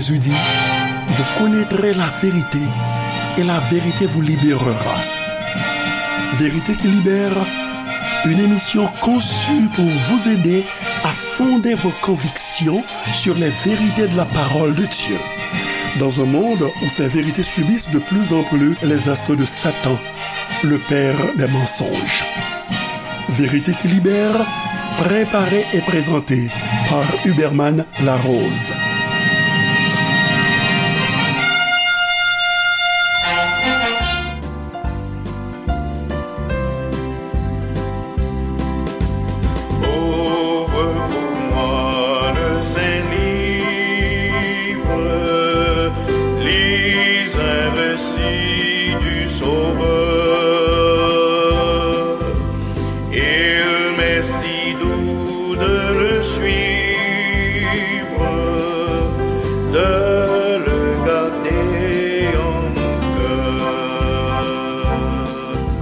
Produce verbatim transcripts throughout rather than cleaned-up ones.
Jésus dit, vous connaîtrez la vérité et la vérité vous libérera. Vérité qui libère, une émission conçue pour vous aider à fonder vos convictions sur les vérités de la parole de Dieu. Dans un monde où ces vérités subissent de plus en plus les assauts de Satan, le père des mensonges. Vérité qui libère, préparée et présentée par Huberman Larose. Ouvre pour moi le Saint-Livre, lis un récit du Sauveur. Il m'est si doux de le suivre, de le garder en mon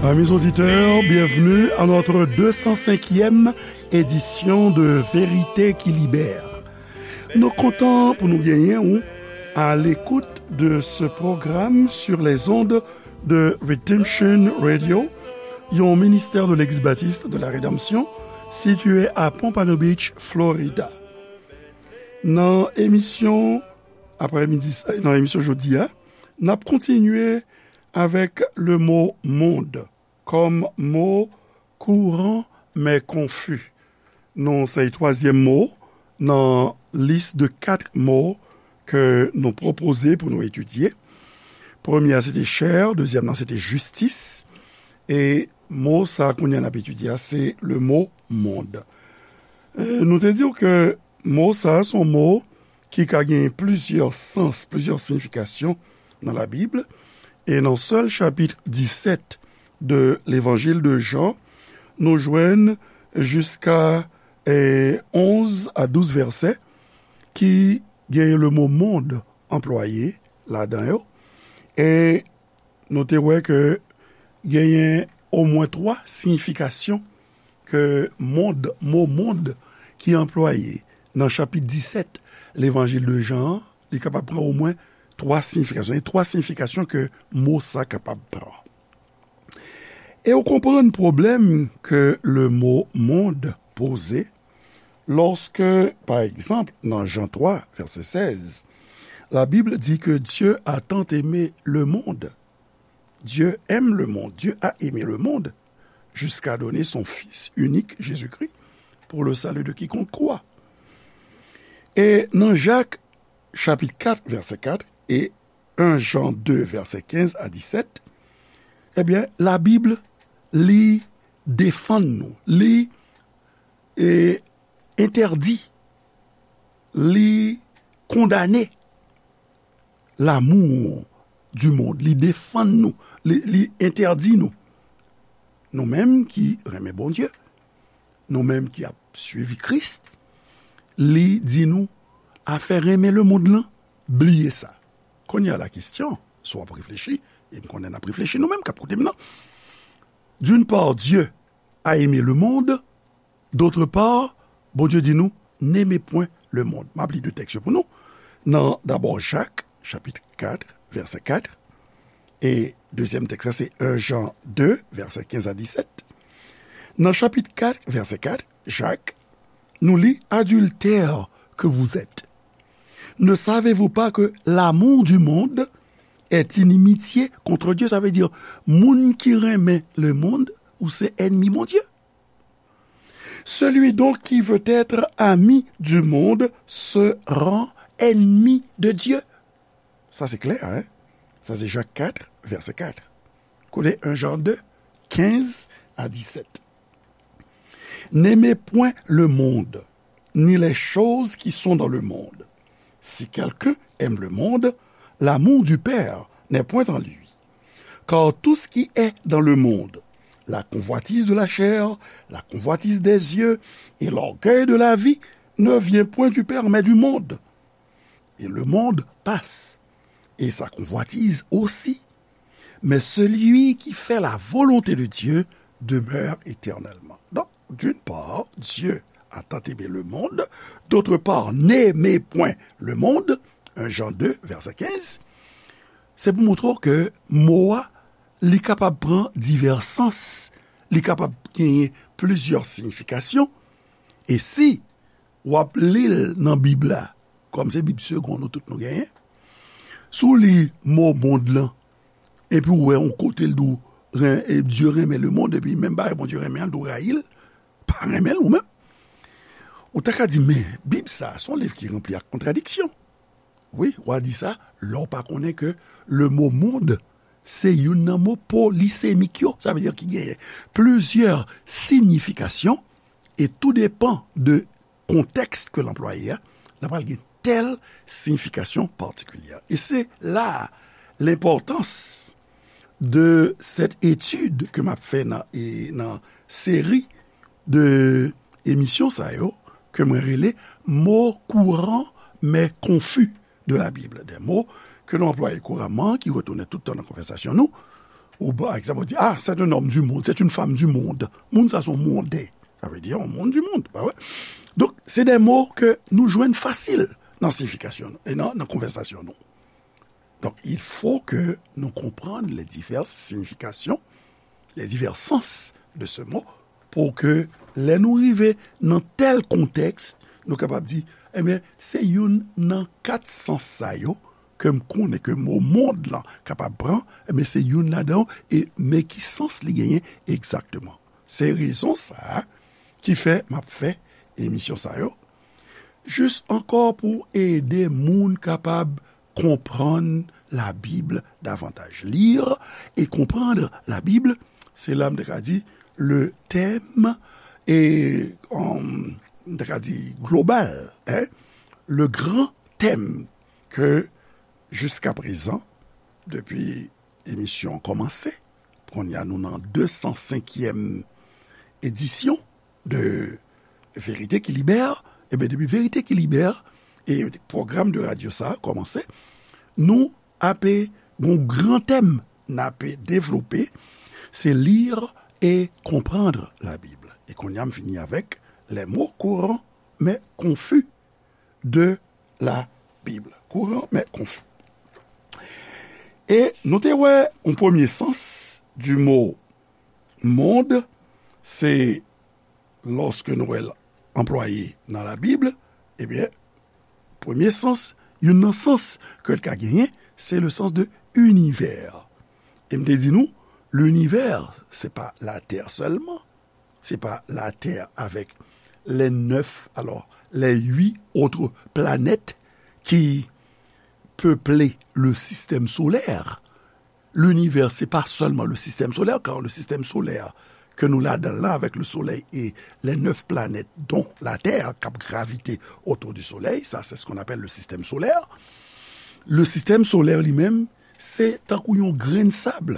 cœur. Amis auditeurs, bienvenue à notre deux cent cinquième édition de Vérité qui Libère. Nou kontan pou nou genyen ou à l'écoute de ce programme sur les ondes de Redemption Radio, yon ministè de Legliz Batis de la Redanmsyon, sitiye a Pompano Beach, Florida. Nan emisyon, aprèmidi, nan emisyon jodi a, n ap kontinye avèk le mo mond kòm mo kouran men konfi. Nou se twazyèm mo nan lis de kat mo ke nou pwopoze pou nou etidye. Premye a, se te chè, dezyèm nan, se te jistis, e mo sa a kounye a n ap etidye a, se le mo mond. E, nou te di w ke mo sa a, se yon mo ki ka gen plizyè sans, plizyè siyifikasyon nan Labib. E nan sèl chapit disèt de Levanjil de Jan, nou jwenn jiska, e, onz a douz vèsè ki gen le mo mond anplwaye ladan yo. E nou te wè ke genyen omwen twa siyifikasyon ke mond, mo mond ki anplwaye nan chapit disèt Levanjil de Jan an, li kapab pran omwen twa siyifikasyon. E twa siyifikasyon ke mo sa kapab pran. E ou konprann pwoblèm ke le mo mond poze lòske, pa egzanp, nan Jan twa, vèsè sèz, Labib di ke Dieu a tant aimé le monde. Dieu aime le monde, Dieu a aimé le monde, jusqu'à donner son Fils unique, Jésus-Christ, pour le salut de quiconque croit. E nan Jak, chapit kat, vèsè kat, e en Jan de, vèsè kenz a disèt, ebyen, Labib, li defann nou, li, e, entèdi, li kondane l'amour du monde, li defann nou, li, li entèdi nou. Nou menm ki renmen Bondye, nou menm ki ap swiv Kris, li di nou afè renmen lemonn lan, bliye sa. Kounye a la kesyon, si w ap reflechi, e m konnen n ap reflechi nou menm k ap koute m nan. D'une part, Dieu a aimé le monde, d'autre part, Bondye di nou, n'aimez point le monde. M ap li de tèks yo pou nou. Nan dabò Jak, chapit kat, vèsè kat, e dezyèm tèks la, se en Jan de, vèsè kenz a disèt. Nan chapit kat, vèsè kat, Jak, nou li, adultères que vous êtes, ne savez-vous pas que l'amour du monde est inimitié contre Dieu? Sa vle di, moun ki renmen lemonn, ou se ènmi Bondye. Celui donc qui veut être ami du monde se rend ennemi de Dieu. Sa se klè, hein? Sa se Jak kat, vèsè kat. Koute en Jan de, kenz a disèt. N'aimez point le monde, ni les choses qui sont dans le monde. Si quelqu'un aime le monde, l'amour du Père n'est point en lui. Car tout ce qui est dans le monde, la convoitise de la chair, la convoitise des yeux et l'orgueil de la vie, ne vient point du Père, mais du monde. Et le monde passe, et sa convoitise aussi. Mais celui qui fait la volonté de Dieu demeure éternellement. Donc, d'une part, Dieu a tant aimé le monde, d'autre part, n'aimez point le monde, Jan de, vèsè kenz, se pou montre w ke mo a, li kapab pran divès sans, li kapab genyen plizyè siyifikasyon, e si w ap li l nan Bib la, kòm se Bib segonn nou tout nou genyen, si w li mo mond lan, epi w wè yon kote l di w, ren- e Dye renmen lemonn, epi menm bagay Bondye renmen an, l di w rayi l, pa renmen l ou menm. Ou ta ka di, men, Bib sa a, se yon liv ki ranpli ak kontradiksyon. Wi, w a di sa, lè w pa konnen ke le mo mond, se youn nan mo polisemik yo, sa vle di ki genyen plizyè siyifikasyon, e tou depan de kontèks ke l anplwaye a, l ap pral gen tèl siyifikasyon patikilye. E se la lenpòtans de cette étude ke m ap fè nan, e, nan seri de emisyon sa yo, ke mwen rele mots courants mais confus de la Bible. Des mots ke nou anplwaye kouramman, ki retounen tout tan nan konvèsasyon nou. Ou, pa egzanp, ou di, ah, c'est un homme du monde, c'est une femme du monde. Moun sa se yon monde. Sa vle di yon moun du monde, pa vre? Donk, se de mo ke nou jwenn fasil nan siyifikasyon nou, e nan, nan konvèsasyon nou. Donc, il faut que nous comprenions les diverses significations, les divers sens de ce mot, pou ke lè nou rive nan tèl kontèks, nou kapab di, ebyen, se youn nan kat sans sa yo ke m konnen ke mo mond lan kapab pran, ebyen, se youn ladan yo, e men ki sans li genyen egzakteman. Se rezon sa a ki fè m ap fè emisyon sa yo, jis ankò pou ede moun kapab konprann Labib davantaj. Lire et comprendre la Bible, se la m te ka di le thème, e, um, m te ka di global, hein, le grand thème ke jiska prezan, depi emisyon an kòmanse, kounye a nou nan de san senkyèm edisyon de Verite ki Libè, ebyen, depi Verite ki Libè, e pwogram de radyo sa a kòmanse, nou ape gon gran tèm n ape devlope, se lire et comprendre la Bible. E kounye a m fini avèk les mots courants mais confus de la Bible. Courant mais confus. E nou te wè yon premye sans du mot monde, se lòske nou wè l anplwaye nan Labib, ebyen, premye sans, youn nan sans ke l ka genyen, se le sens de univers. E m te di nou, l'univers, se pa Latè sèlman, se pa Latè avèk les neuf, alors, les huit autres planètes qui peuplent le système solaire. L'univers, se pa sèlman le système solaire, car le système solaire ke nou ladan l la, avec le soleil et les neuf planètes, dont la Terre, k ap gravite autour du soleil, ça, c'est ce qu'on appelle le système solaire. Le système solaire li menm, se tankou yon grenn sab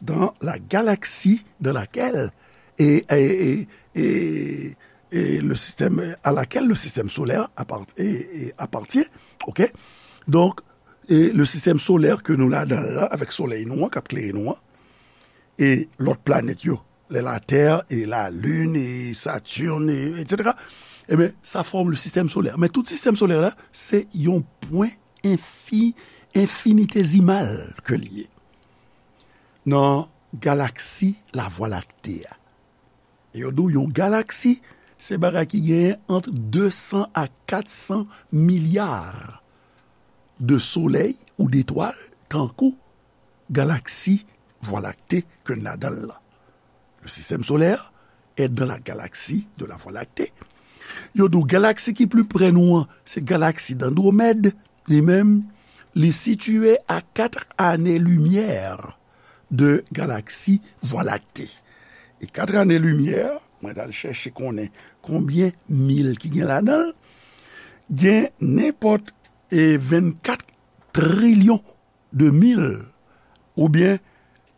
dans la galaxie dans laquelle et, et, et, et, et le système, à laquelle le système solaire appart- et, et appartient. OK? Donk, e le sistèm solè ke nou ladan l la, avèk solèy nou an k ap klere nou an, e lòt planèt yo, les la Terre et la Lune et Saturne, et, et cetera, ebyen, sa fòm le sistèm solè. Men tout sistèm solè la, se yon pwen enfi, enfinitésimal ke li ye nan galaksi Lavwa Lakte a. E yo di w yon galaksi, se bagay ki genyen ant de san a kat san milya de solèy ou detwal, tankou galaksi Vwa Lakte ke n ladan l lan. Le système solaire est dans la galaxie de la Voie lactée. Yo di w galaksi ki pli prè nou an, se galaksi Andwomèd, li menm, li sitiye a kat ane limyè de galaksi Vwa Lakte. E kat ane limyè, mwen t al chèche konnen konbyen mil ki gen ladan l, gen nenpòt, e, vennkat trilyon de mil oubyen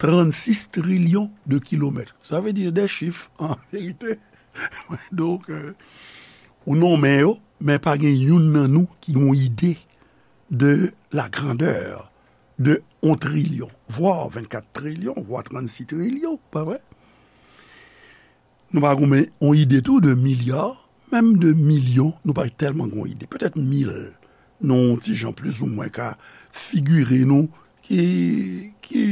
trannsis trilyon de kilomèt. Sa vle di de chif, an verite. Donk, euh, ou nonmen yo, men pa gen youn nan nou ki gen yon ide de la grandeur de yon trilyon, vwa vennkat trilyon, vwa trannsis trilyon, pa vre? Nou pa gen yon ide tou de milya, menm de milyon, nou pa tèlman gen yon ide. Petèt mil, Nou ti jan plizoumwen ka figire nou ki, ki,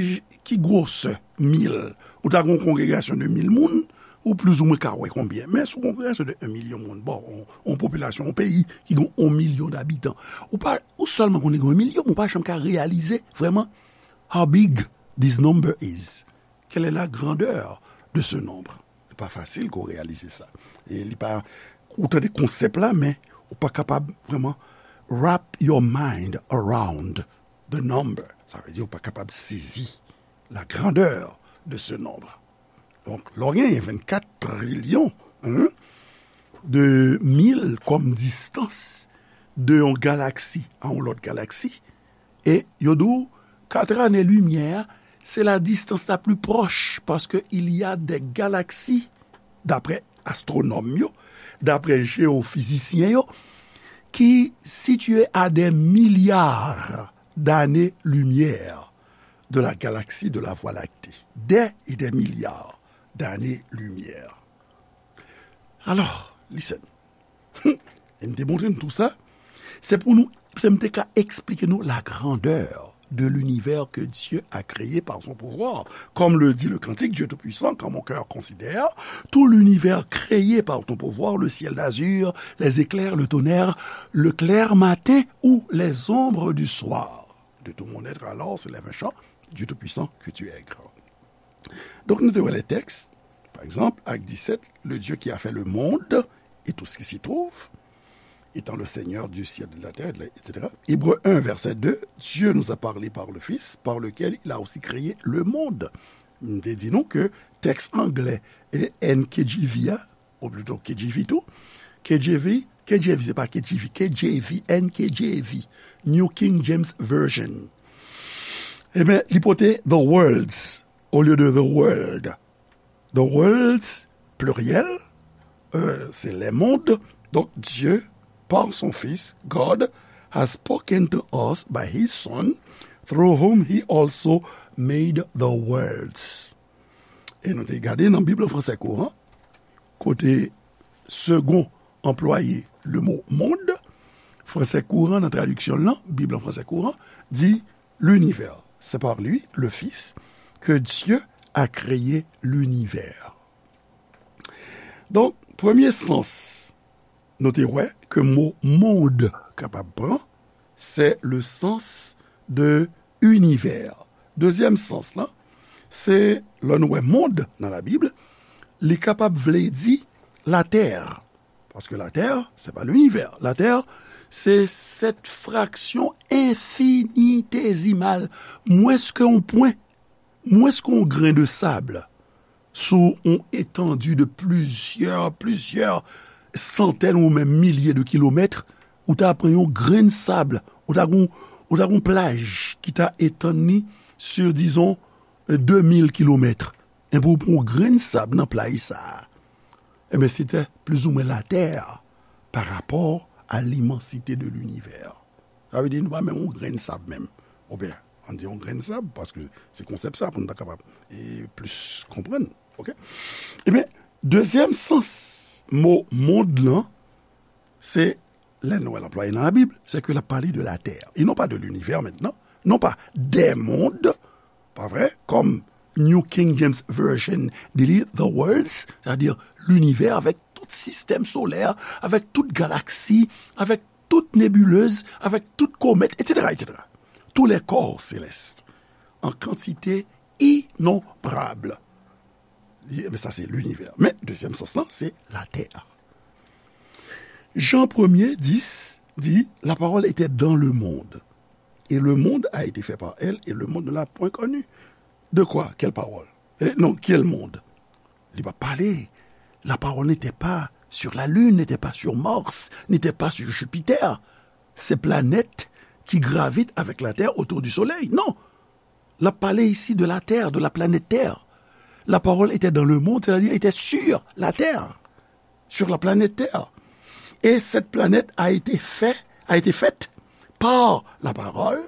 ki gwosè mil. Ou ta gen yon kongregasyon de mil moun, ou plizoumwen ka wè konbyen. Men sou kongregasyon de yon milyon moun, bon, yon, yon popilasyon, yon peyi ki gen yon milyon dabitan, ou pa, ou sèlman konnen gen yon milyon, men ou pa janm ka reyalize vrèman how big this number is. Quelle est la grandeur de ce nombre? Li pa fasil ke w reyalize sa. E li pa, ou tande konsèp la, men ou pa kapab vrèman wrap your mind around the number. Sa vle di ou pa kapab sezi la grandeur de ce nombre. Donk, lè w genyen vennkat trilyon, hein, de mil kòm distans de yon galaksi a yon lòt galaksi, e yo di w kat ane limyè a, se la distance la plus proche, parce que il y a des galaxies, daprè astwonòm yo, daprè jeyofizisyen yo, ki sitiye a des milliards d'années-lumière de la galaxie de la Voie lactée. Des et des milliards d'années-lumière. Alors, listen. E m te montre nou tou sa. Se pou nou, se m te ka eksplike nou la grandeur de l'univers que Dieu a créé par son pouvoir. Comme le dit le cantique, Dieu Tout-Puissant, quand mon cœur considère tout l'univers créé par ton pouvoir, le ciel d'azur, les éclairs, le tonnerre, le clair matin ou les ombres du soir. De tout mon être, alors, s'élève un chant, Dieu Tout-Puissant, que tu es grand. Donk, nou te wè lè tèks, pa egzanp, Ak disèt, le Dieu qui a fait le monde et tout ce qui s'y trouve, étant le Seigneur du ciel et de la terre, et cetera. Hébreux un, verset deux, Dieu nous a parlé par le Fils, par lequel il a aussi créé le monde. M te di nou ke tèks anglè e N K J V a, ou plito K J V tou, K J V, K J V, se pa K J V, K J V, N K J V, New King James Version. Ebyen, li pote the worlds olye de the world. The worlds, pliryèl, euh, se les mondes. Donk, Dieu, par son Fils, God, has spoken to us by his Son, through whom he also made the worlds. E nou te gade nan Bib an fransè kouran, kote Segond anplwaye le mo monde, fransè kouran nan tradiksyon l lan, Bib an fransè kouran, di l'univers. C'est par lui, le Fils, que Dieu a créé l'univers. Donk, premye sans nou te wè ke mo monde kapab pran, se le sens de univers. Dezyèm sans lan, se lè nou wè monde nan Labib, li kapab vle di latè. Paske latè, se pa l'univers. Latè, se cette fraction infinitésimale, mwens ke yon pwen, mwens ke yon grenn de sab, sou yon etandi de plizyè, plizyè santèn ou menm milye de kilomèt, ou ta pran yon grenn sab, ou ta gon, ou ta gon plaj ki ta etann li sur, disons, euh, deux mille kilomètres. Enben, ou pran yon grenn sab nan plaj sa a. Enben, se te plizoumwen latè pa rapò a l'immensité de l'univers. Sa vle di nou pa menm yon grenn sab menm. Oubyen, ann di yon grenn sab, paske se konsèp sa pou nou ta kapab e plis konprann. Oke? Ebyen, dezyèm sans mo monde lan, se lè nou wè l anplwaye nan Labib, se ke l ap pale de latè. E non pa de l'univers maintenant, non pas des mondes, pa vre, kòm New King James Version di li, the worlds, c'est-à-dire l'univers avec tout système solaire, avec toute galaxie, avec toute nébuleuse, avec toute comète, et cetera, et cetera. Tous les corps célestes, en quantité innombrable. Li, men sa se l'univers. Men, dezyèm sans lan, se latè. Jan premye dis di, la parole était dans le monde, et le monde a été fait par elle, et le monde ne l'a point connue. De quoi? Quelle parole? Eh, non, quel monde? Li pa pale. La parole n'était pas sur la Lune, n'était pas sur Mars, n'était pas sur Jupiter. Ces planètes qui gravitent avec la Terre autour du Soleil. Non. L ap pale isi de la Terre, de la planète Terre. La parole était dans le monde, c'est-à-dire était sur la terre, sur la planète Terre. Et cette planète a été fait, a été faite par la parole,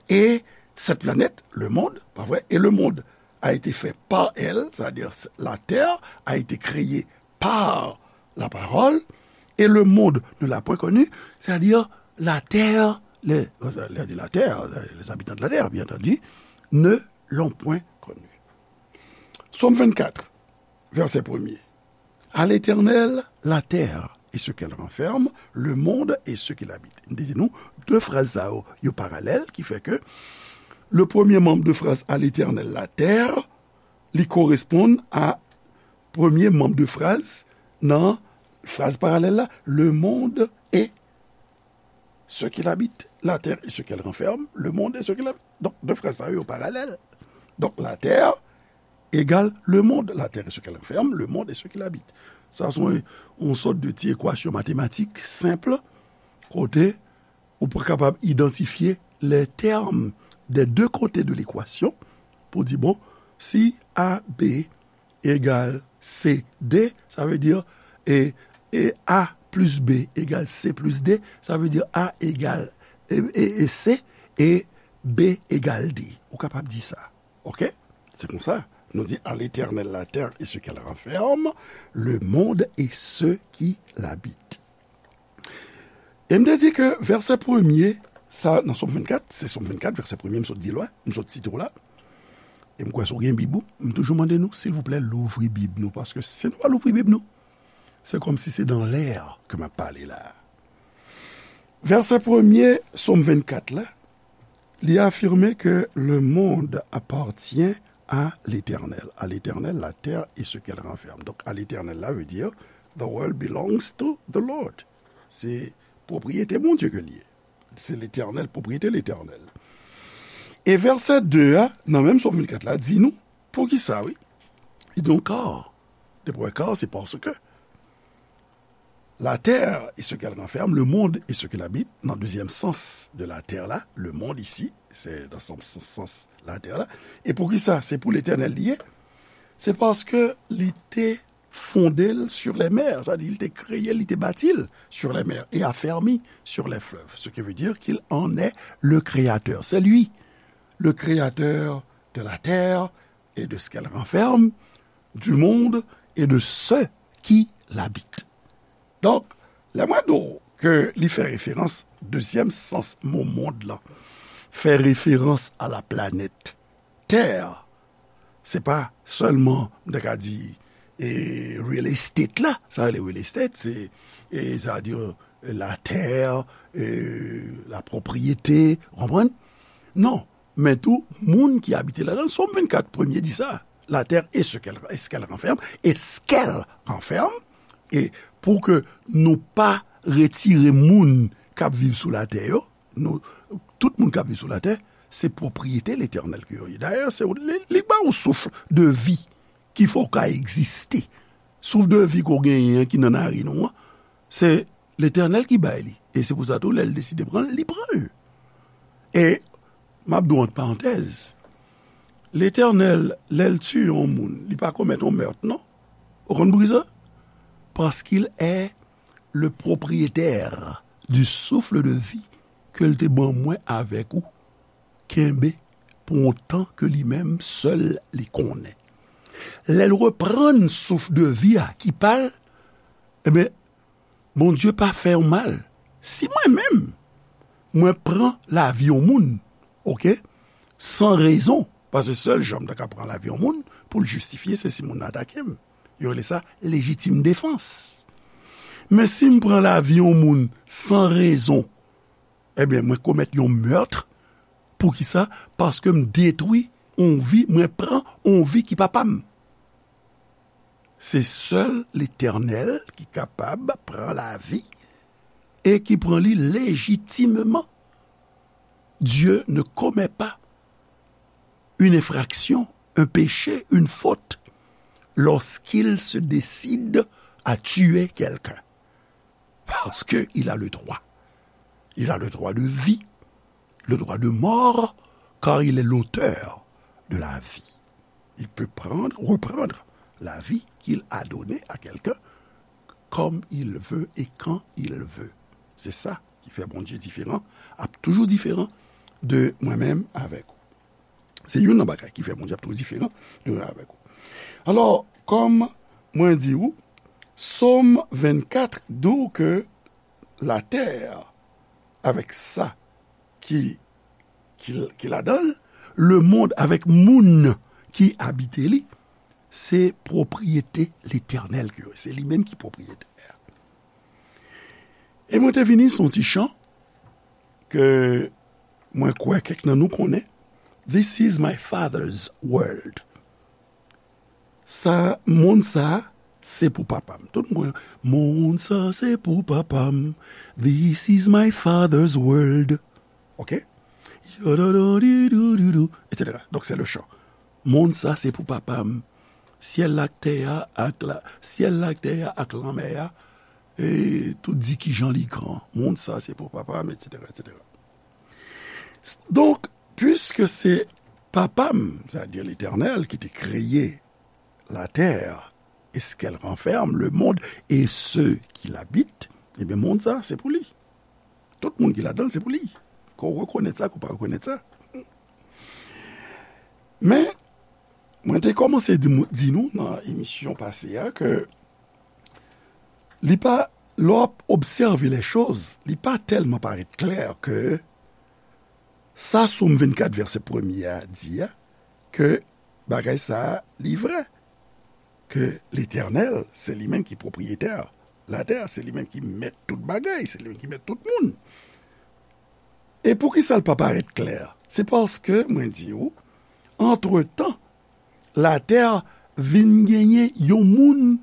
et cette planète, le monde, pa vre, et le monde a été fait par elle, c'est-à-dire la terre a été créée par la parole, et le monde ne l'a point connue, c'est-à-dire La terre, les, les, les habitants de la terre, bien entendu, ne l'ont point connu. Sòm vennkat, vèsè premye. À l'Éternel la terre et ce qu'elle renferme, le monde et ceux qui l'habitent. M te di nou, de fraz sa yo, yo paralèl, ki fè ke le premye manm de fraz à l'Éternel la terre, li koresponn a premye manm de fraz nan fraz paralèl la, le monde et ceux qui l'habitent, la terre et ce qu'elle renferme, le monde et ceux qui l'habitent. Donk, de fraz sa yo, yo paralèl. Donk, la terre égale le monde, la terre et ce qu'elle renferme, le monde et ceux qui l'habitent. Sa se yon, yon sòt de ti ekwasyon matematik senp, kote ou pou kapab idantifye les termes des deux côtés de l'équation pou di, bon, si A B égal C D, sa vle di, e, e A plus B égal C plus D, sa vle di A égal, e, e, e C, e B égal D. Ou kapab di sa. Oke? Se konsa, nou di, à l'Éternel la terre et ce qu'elle renferme, le monde et ceux qui l'habitent. E m te di ke vèsè premye, sa, nan Sòm vennkat, se Sòm vennkat, vèsè premye, m sot di l la, m sot site w la. E m kwè si w gen Bib ou, m toujou mande nou, silvouplè, louvri Bib nou, paske si nou pa louvri Bib nou, se kòmsi se dans l'air ke m ap pale la. Vèsè premye, Sòm vennkat la, li afime ke le monde appartient à l'Éternel. À l'Éternel, la terre et ce qu'elle renferme. Donk, à l'Éternel la vle di, the world belongs to the Lord. Se pwopriyete Bondye ke l ye. Se Letènèl, pwopriyete Letènèl. E vèsè de a, nan menm Sòm vennkat la, di nou, poukisa, wi. Li di nou, car, depi w wè car, se paske la terre et ce qu'elle renferme, le monde et ce qu'il habite, nan dezyèm sans de la terre la, le monde isi, se nan sans, sans, sans la terre la. E poukisa? Se pou Letènèl li ye. Se paske li te fonde l sur les mers, sa di, li te kreye l, li te bati l sur les mers et affermi sur les fleuves, ce qui veut dire qu'il en est le créateur. C'est lui, le créateur de la terre et de ce qu'elle renferme, du monde et de ceux qui l'habitent. Donk, lè mwen di w ke li fè referans, dezyèm sans mo monde lan, fè referans a la planèt Tè, se pa sèlman, m ta ka di, e, real estate la. Sa rele real estate, se, e, sa vle di, la terre, e, la propriété, ou konprann? Non, men tou, moun ki abite ladan l. Sòm vennkat, premye di sa. La terre et ce qu'elle, et ce qu'elle renferme, et ce qu'elle renferme, e pou ke nou pa retire moun k ap viv sou latè yo, nou, tout moun k ap viv sou latè, se pwopriyete Letènèl ke yo ye. Dayè, se li, li ba w souf de vi ki fè w ka egziste. Souf de vi ke w genyen an ki nan narin ou an, se Letènèl ki bay li. E se pou sa tou, lè l deside pran l, li pran l. E m ap di w ant parantèz, Letènèl, lè l tiye yon moun, li pa komèt yon mèt, non? Ou konn poukisa? Parce qu'il est le propriétaire du souffle de vie ke l te ban mwen avèk ou kenbe pou yon tan ke li menm sèl li konnen. Lè l reprann souf de vi a ki pa l, ebyen, Bondye pa fè yon mal. Si mwen menm, mwen pran lavi yon moun, oke, san rezon, paske sèl jan m ta ka pran lavi yon moun, pou l jistifye, se si moun nan atake m. Yo rele sa lejitim defans. Men si m pran lavi yon moun san rezon, ebyen, mwen komèt yon mèt. Poukisa? Paske m detwi yon vi, mwen pran yon vi ki pa pa m. Se sèl Letènèl ki kapab pran lavi e ki pran li lejitimman. Dieu ne commet pas une infraction, un péché, une faute, lorsqu'il se décide à tuer quelqu'un. Parce qu'il a le droit. Il a le droit de vie, le droit de mort, car il est l'auteur de la vie. Il peut prendre, reprendre la vie qu'il a donnée à quelqu'un comme il veut et quand il veut. Se sa ki fè Bondye diferan, ap toujou diferan de mwen menm avèk ou. Se youn nan bagay ki fè Bondye ap toujou diferan de mwen avèk ou. Alò, kòm mwen di ou, Sòm vennkat di w ke latè avèk sa ki, ki, ki ladan l, lemonn avèk moun ki abite li, se pwopriyete Letènèl ke yo ye. Se li menm ki pwopriyetè a. E mwen te vini sou yon ti chan ke mwen kwè kèk nan nou konnen. This is my father's world. Sa, monn sa, se pou papa m. Tout moun konnen, monn sa, se pou papa m. This is my father's world. Ok? Yadadadidoudidou, et cetera. Donk, se le chan. Monn sa, se pou papa m. Syèl la ak tè a, ak la, syèl la ak tè a, ak lanmè a, e tout di kijan li gran. Monn sa, se pou papa m, et cetera, et cetera. Donk, piske se papa m, sètadi Letènèl, ki te kreye la terre et ce qu'elle renferme, le monde et ceux qui l'habitent, ebyen, monn sa, se pou li. Tout moun ki ladan l, se pou li. Ke w rekonèt sa, ke w pa rekonèt sa. Men, mwen te kòmanse di, di nou nan emisyon pase a ke li pa, lè w ap obsève lè choz, li pa tèlman parèt klè ke sa Sòm vennkat vèsè premye a di a, ke bagay sa a, li vrè. Ke Letènèl, se li menm ki pwopriyetè latè, se li menm ki mèt tout bagay, se li menm ki mèt tout moun. E poukisa l pa parèt klè? Se paske, mwen di w, antretan, latè vin genyen yon moun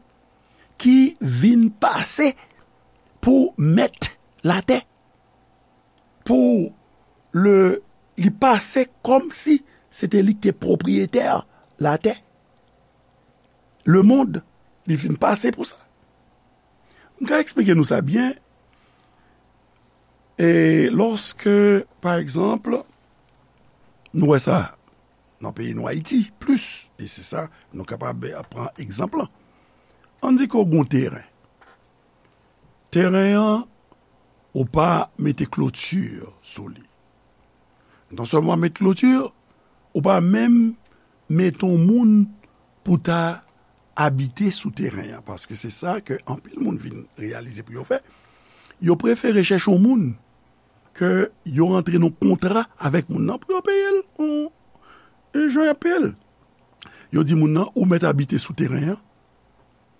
ki vin pase pou mèt latè. Pou le, li pase kòmsi se te li ki te pwopriyetè latè. Lemonn, li vin pase pou sa. M ka eksplike nou sa byen. E lòske, pa egzanp, nou wè sa nan peyi nou Ayiti, plis, e se sa nou kapab pran egzanp lan. Ann di ke w gen yon teren. Teren an, ou pa mete kloti sou li. Non sèlman w pa met kloti, ou pa menm mete yon moun pou ta abite sou teren an, paske se sa ke anpil moun vin reyalize pou yo fè. Yo prefere chèche yon moun ke yo rantre nan kontra avèk moun nan pou yo peye l, yon, yon jan y ap peye l. Yo di moun nan, ou mèt abite sou teren an,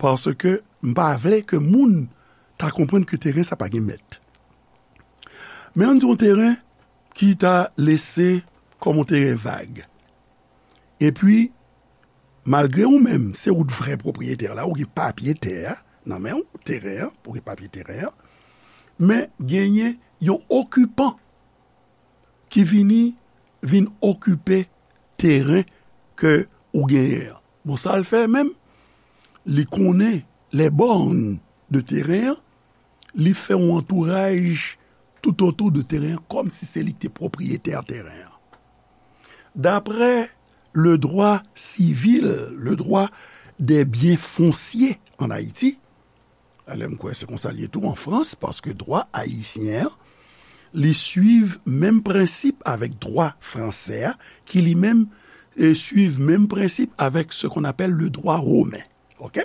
paske m pa vle ke moun ta konprann ke teren sa pa gen mèt. Men ann di yon teren ki ta lese kòm yon teren vag. Epi, malgre ou menm, se ou t vrè pwopriyetè la, ou gen papye tè a nan men w, teren an, ou gen papye teren an, men genyen yon okipan ki vini, vin okipe teren ke ou genyen an. Bon, sa l fè menm, li konnen les bornes de teren an, li fè yon antouraj toutotou de teren an, kòmsi se li ki te pwopriyetè teren an. Daprè le droit civil, le droit des biens fonciers en Haïti, alè m kwè se konsa l ye tou an Frans, paske dwa ayisyen an, li swiv menm prensip avèk dwa fransè a, ki li menm, e, swiv menm prensip avèk ce qu'on appelle le droit romain. Ok?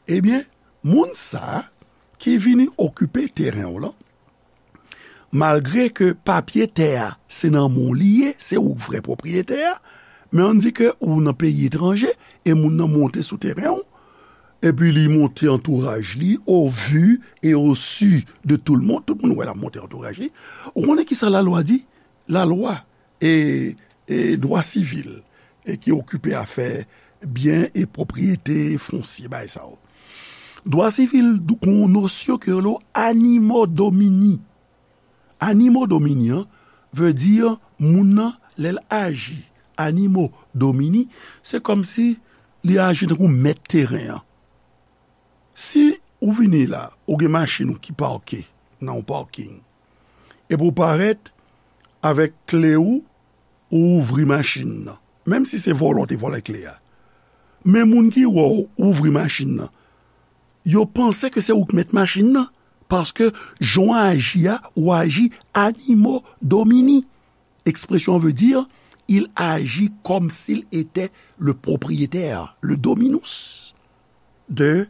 Ebyen, moun sa a ki vini okipe teren w lan, malgre ke papye tè a se nan men w li ye, se ou k vrè pwopriyetè a, men ann di ke ou nan peyi etranje e moun nan monte sou teren w, epi li monte antouraj li, au vu et au su de tout le monde, tout moun wè l ap monte antouraj li. Ou konnen kisa lalwa di? Lalwa e, e dwa sivil, e ki okipe afè byen e pwopriyete fonsye, bagay sa yo. Dwa sivil, gen yon nosyon ke yo rele animo domini. Animo domini an vle di moun nan, lè l aji. Animo domini, se kòmsi li aji tankou mèt teren an. Si ou vini la, ou gen machin ou ki pake nan yon parking, epi ou parèt avèk kle ou, ou ouvri machin nan. Menm si se vòlè w te vòlè kle a. Men moun ki wè w ouvri machin nan, yo panse ke se ou k mèt machin nan, paske jan w aji a, ou aji animo domini. Ekspresyon an vle di, il agit comme s'il était le propriétaire, le dominus de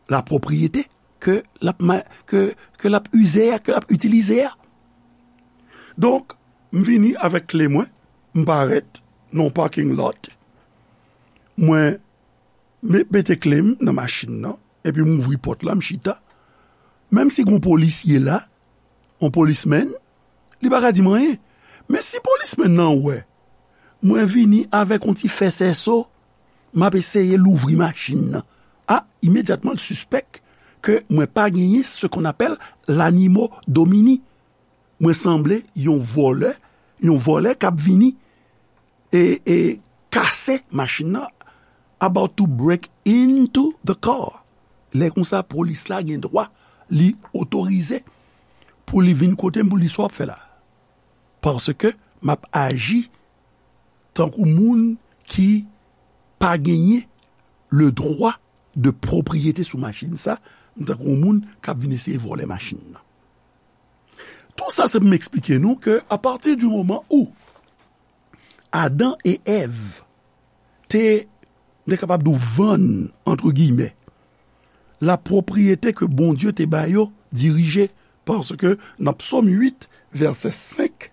la propriété. ke l ap ma-, ke, ke l ap ize a, ke l ap itilize a. Donk, m vini avèk kle mwen, m parèt nan yon parking lot, mwen me-, mete kle m nan machin nan, epi m ouvri pòt la, m chita. Menm si gen yon polisye la, yon policeman, li pa ka di m anyen. Men si policeman nan wè mwen vini avèk yon ti fè sèso, m ap eseye louvri machin nan. A, imedyatman, l sispèk ke mwen pa genyen ce qu'on appelle l'animo domini. Mwen sanble yon vòlè, yon vòlè k ap vini e, e kase machin nan, about to break into the car. Lè konsa, polis la gen dwa, li otorize pou li vin kote m, pou l di sa w ap fè la. Paske m ap aji tankou moun ki pa genyen le droit de propriété sou machin sa, m tankou moun k ap vin eseye vòlè machin nan. Tou sa se pou m eksplike nou ke a partir du moment où Adan e Èv te, te kapab di w vann, entre guillemets, la pwopriyete ke Bondye te ba yo dirije, paske nan Psòm uit, vèsè senk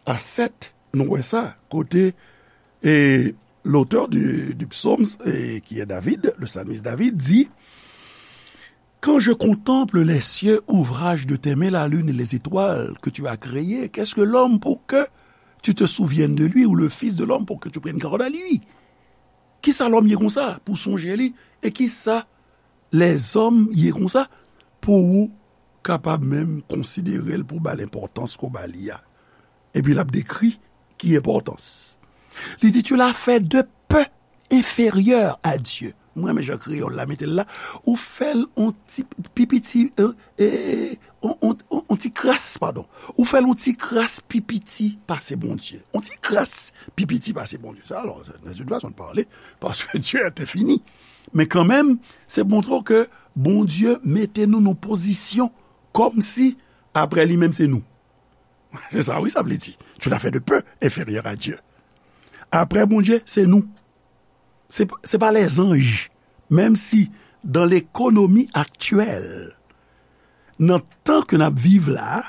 a sèt, nou wè sa, kote, e, l'auteur du, du psaume, e, qui est David, le psalmiste David, dit, quand je contemple les cieux, ouvrage de tes mains, la lune et les étoiles que tu as créées, qu'est-ce que l'homme pour que tu te souviennes de lui, ou le fils de l'homme pour que tu prennes garde à lui? Kisa lòm ye konsa pou sonje li? E kisa lèzòm ye konsa pou ou kapab menm konsidere l, pou ba l enpòtans ke w ba li a? Epi l ap dekri ki enpòtans. Li di, tu l'as fait de peu inférieur à Dieu. Mwen renmen jan kreyòl la mete l la. Ou fè l on ti pi piti, e, e, on, on, on, on ti kras, padon. Ou fè l on ti kras pi piti pase Bondye. On ti kras pi piti pase Bondye. Sa, alò, se, se yon fason de pale, paske Dye a te fini. Men kanmenm, se montre w ke Bondye mete nou nan pozisyon kòmsi apre li menm se nou. Se sa, wi, sa vle di. Tu l'as fait de peu inférieur à Dieu. Apre Bondye, se nou. Se, se pa lèzanj. Menm si, dans l'économie actuelle, nan tan ke n ap viv la,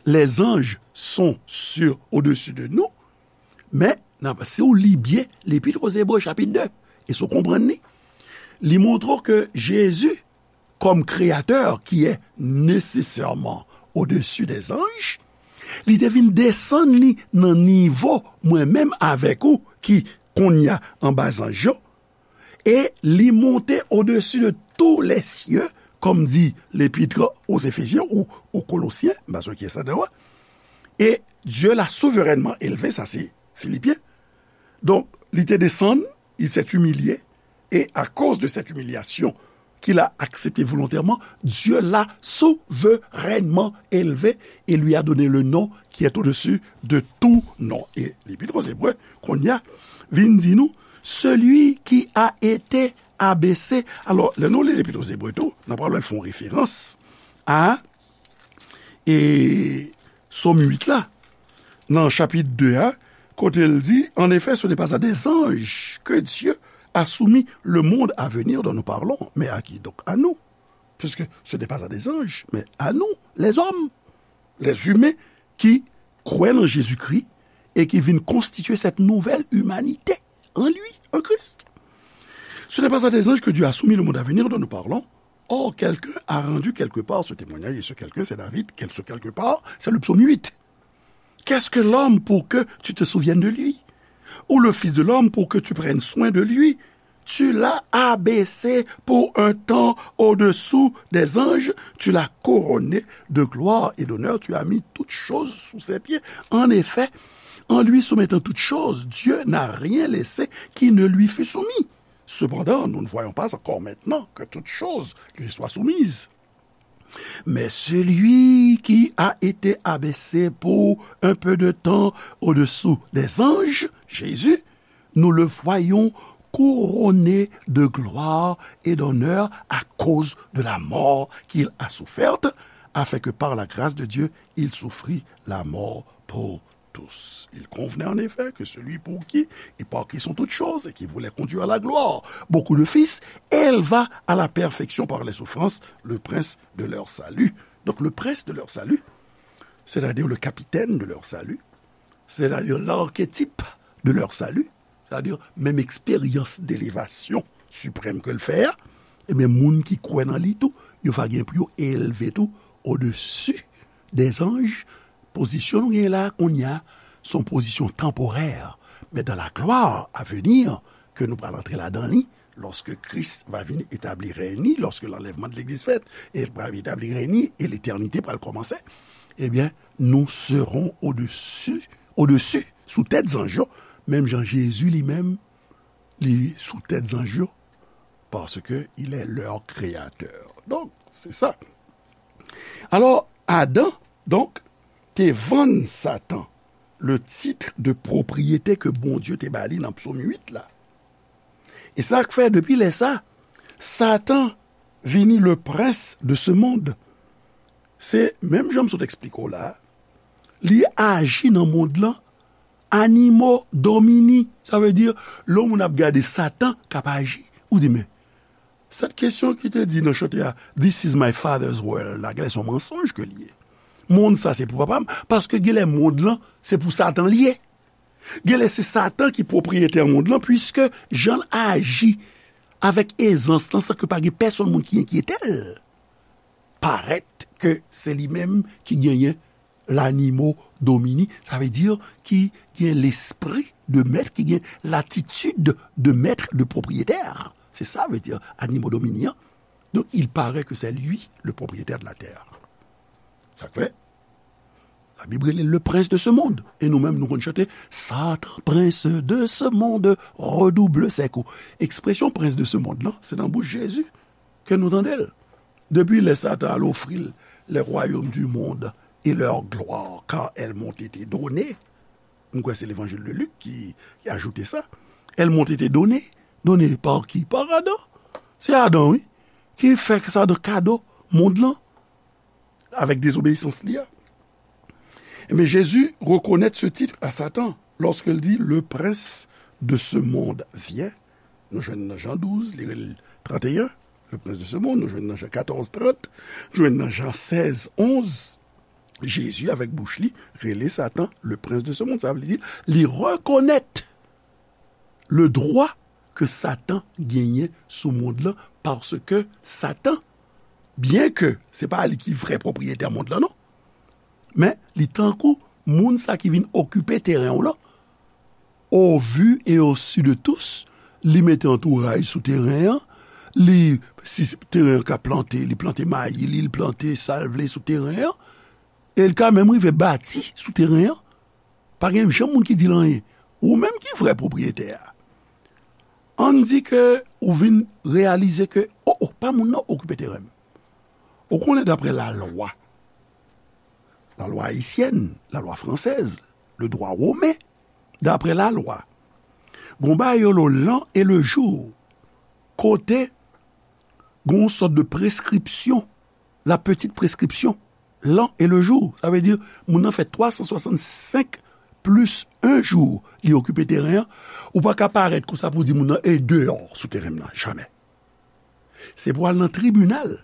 les anges sont sur, au-dessus de nous, men, n ap, si w li byen, Lepit aux Hébreux, chapit de, e si w konprann li, li montre w ke Jezi, comme créateur qui est nécessairement au-dessus des anges, li te vin desann li nan nivo mwen menm avèk ou ki kounye a anba zanj yo, e li monte au-dessus de tous les cieux, comme dit l'épître aux Éphésiens ou aux Colossiens, m pa sonje kiyès la deyò a. Et Dieu l'a souverainement élevé, sa se Filipyen. Donk, li te desann, il s'est humilié, et à cause de cette humiliation qu'il a acceptée volontairement, Dieu l'a souverainement élevé et lui a donné le nom qui est au-dessus de tout nom. E Lepit aux Hébreux, kounye a, vin di nou, celui qui a été abaissé. Alò, lè nou li Lepit aux Hébreux tou, n ap pral fè yon referans a e Sòm uit la, nan chapit de a, kote l di, en effet, ce n'est pas à des anges que Dieu a soumis le monde à venir dont nous parlons, mais à qui? Donc à nous. Puisque ce n'est pas à des anges, mais à nous, les hommes, les humains qui croient en Jésus-Christ et qui viennent constituer cette nouvelle humanité en lui, en Christ. Ce n'est pas à des anges que Dieu a soumis le monde à venir dont nous parlons. Or, quelqu'un a rendu quelque part ce témoignage, et ce quelqu'un, c'est David, quel, ce quelque part, c'est le psaume huit. Qu'est-ce que l'homme pour que tu te souviennes de lui? Ou le fils de l'homme pour que tu prennes soin de lui? Tu l'as abaissé pour un temps au-dessous des anges, tu l'as couronné de gloire et d'honneur, tu as mis toutes choses sous ses pieds. En effet, en lui soumettant toutes choses, Dieu n'a rien laissé qui ne lui fût soumis. Cependant, nous ne voyons pas encore maintenant que toutes choses lui soient soumises. Mais celui qui a été abaissé pour un peu de temps au-dessous des anges, Jésus, nous le voyons couronné de gloire et d'honneur à cause de la mort qu'il a soufferte, afin que par la grâce de Dieu, il souffrit la mort pour tous. Il convenait en effet que celui pour qui et par qui sont toutes choses et qui voulait conduire à la gloire beaucoup de fils, élevât à la perfection par les souffrances le prince de leur salut. Donc le prince de leur salut, c'est-à-dire le capitaine de leur salut, c'est-à-dire l'archétype de leur salut, c'est-à-dire menm eksperyans delevasyon siprèm ke l fè a, ebyen, moun ki kwè nan li tou, yo va gen pou yo elve tou odesi dè zanj. Pozisyon nou gen la kounye a, se yon pozisyon tanporè, men dans la gloire à venir, ke nou pral antre ladan li, lòske Kris va vin etabli rèy li, lòske l'enlèvement de l'église fèt, e l pral etabli rèy li, e letènite pral kòmanse, ebyen, nous serons au-dessus, au-dessus, sou tèt zanj yo, menm jan Jezi li menm, li sou tèt zanj yo, parce que il est leur créateur. Donc, c'est ça. Alors, Adan, donk, te vann Satan le titre de propriété ke Bondye te ba li nan Psaume huit la. E sa k fè, depi lè sa, Satan vini le prince de ce monde. Se menm jan m sot eksplike w la, li aji nan mond lan, animo domini. Sa vle di, lè yon moun ap gade Satan k ap aji, ou di, men, sèt kesyon ki te di nan chante a, "This is my father's world," la, genlè se yon mansonj ke li ye. Mond sa se pou papa m, paske genlè mond lan se pou Satan li ye. Genlè se Satan ki pwopriyetè mond lan, piske jan l aji avèk ezans lan, san ke pa gen pèsonn moun ki enkyete l, parèt ke se li menm ki genyen l'animo domini, sa vle di ki gen lespri de mèt, ki gen latitid de mèt, de pwopriyetè. Se sa vle di animo domini an. Donc, il paraît que c'est lui le propriétaire de la terre. Sa k fè, Labib rele le prince de ce monde. E nou menm, nou konn chante, Satan, prince de ce monde, redouble ses coups. Ekspresyon prince de ce monde lan, se nan bouch Jezi ke nou tande l. Depi lè Satan al ofri l les royaumes du monde et leur gloire, car elles m'ont été données. M kwè se Levanjil de Lik ki, ki ajoute sa. Elles m'ont été données. Données par qui? Par Adan. Se Adan, wi, ki fè Satan kado mond lan avèk dezobeyisans li a. Ebyen, Jezi rekonèt ce titre à Satan lorsqu'il dit, le prince de ce monde vient. Nou jwenn nan Jan douz, li rele l trant e en, le prince de ce monde, nou jwenn nan Jan katòz, trant, jwenn nan Jan sèz, onz, Jezi avèk bouch li rele Satan le prince de ce monde. Sa vle di, li rekonèt le droit ke Satan genyen sou mond lan, paske Satan, byen ke se pa li ki vrè pwopriyetè mond lan, non, men li tankou moun sa ki vin okipe teren w lan, au vu et au su de tous, li mete antouraj sou teren an, li, si teren an ka plante, li plante mayi, li plante sa l vle sou teren an, e l ka menm rive bati sou teren an. Pa gen janm moun ki di l anyen. Ou menm ki vrè pwopriyetè a. Ann di ke ou vin reyalize ke, o, o, pa moun nan okipe teren m. Ou konnen, daprè lalwa, lalwa ayisyèn, lalwa fransèz, le droit romain, daprè lalwa, gon bagay yo rele l'an et le jour, kote gon sòt de prescription, la petite prescription, l'an et le jour. Sa vle di, moun nan fè twa san swasannsenk plis en jou, li okipe teren an, ou pa ka parèt konsa pou di moun nan e deyò sou teren m nan, jamè. Se pou al nan tribinal,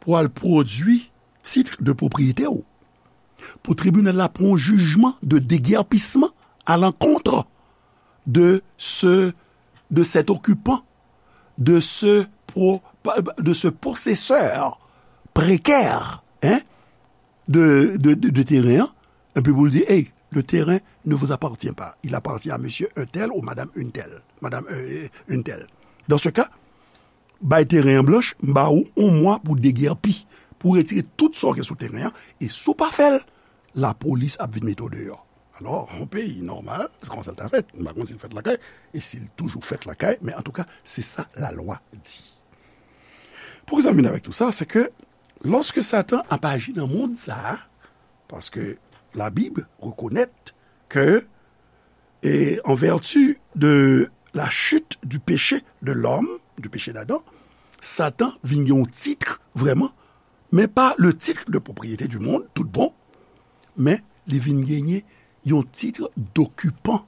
pou al pwodui tit de pwopriyete w. Pou tribinal la pran yon jijman de degèpisman à l'encontre de ce, de cet occupant, de ce pro-, de ce possesseur précaire, hein, de, de, de, de terrain, hein, et puis vous le dites, hey, le terrain ne vous appartient pas. Il appartient à monsieur un tel ou madame une telle. Madame, euh, une telle. Dans ce cas, bay teren an blanch, m ba ou yon mwa pou degèpi, pou retire tout sa w gen sou teren an, e si w pa fè l, lapolis ap vin mete w deyò. Alò, yon peyi nòmal, se konsa l ta fèt. M pa konn si l fèt lakay, e si l toujou fèt lakay, men antouka, se sa lalwa di. Poukisa m vin avèk tou sa? Se ke lòske Satan ap aji nan mond sa a, paske Labib rekonèt ke, e, en vertu de la chute du péché de l'homme, du péché d'Adam, Satan vin gen yon tit vrèman, men pa le titre de propriété du monde, tout bon, men li vin genyen yon tit dokipan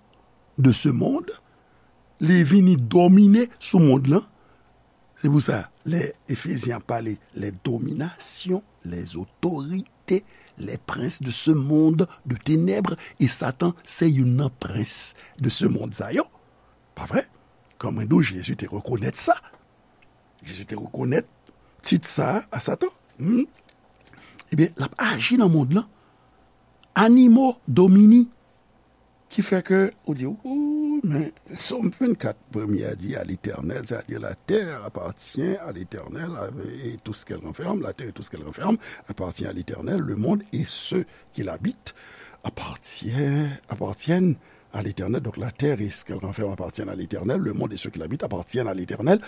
de ce monde, li vini domine sou mond lan. Se pou sa, lè Efezyen ap pale les dominations, les autorités, les princes de ce monde de ténèbres, e Satan se youn nan prens de ce monde sa yo. Pa vre? Kòman do Jezi te rekonèt sa? Jezi te rekonèt tit sa a Satan. Hmm? Ebyen, l ap aji nan mond lan. Animo Domini. Ki fè ke ou di, ou, men Sòm vennkat, premye a di, à l'Éternel, c'est-à-dire la terre appartient à l'Éternel, et tout ce qu'elle renferme, la terre et tout ce qu'elle renferme appartient à l'Éternel, le monde et ceux qui l'habitent appartiennent, appartiennent à l'Éternel. Donc la terre et ce qu'elle renferme appartiennent à l'Éternel, le monde et ceux qui l'habitent appartiennent à l'Éternel.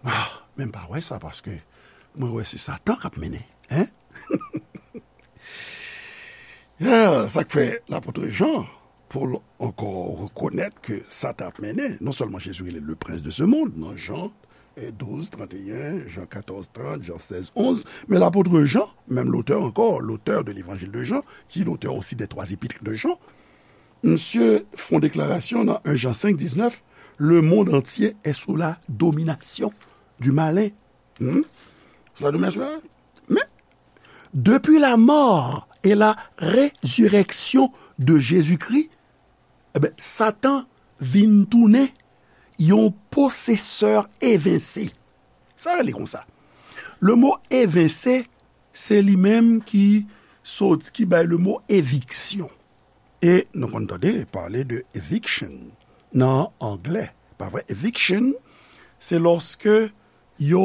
Ah, men m pa wè sa, paske mwen wè se Satan k ap mennen, hein? Ah, sa k fè lapot Jan, pou l ankò rekonèt ke Satan ap mennen, non sèlman Jezi rele le prince de ce monde, nan Jan, eh, douz, trant e yen, Jan katòz, trant, Jan sèz, onz, men lapot Jan, menm lotè ankò, l'auteur de l'évangile de Jean, ki lotè osi des trois épîtres de Jean, misye fè yon deklarasyon nan en Jan senk, diznèf, le monde entier est sous la domination du malin. Hmm? Sous la domination du malin. Men, depuis la mort et la résurrection de Jésus-Christ, ebyen, Satan vin tounen yon posesè evense. Sa rele konsa. Le mo evense, se li menm ki sot, ki bay le mo eviksyon. E nou konn tande pale de eviction nan anglè. Pa vre? Eviction, se lòske yo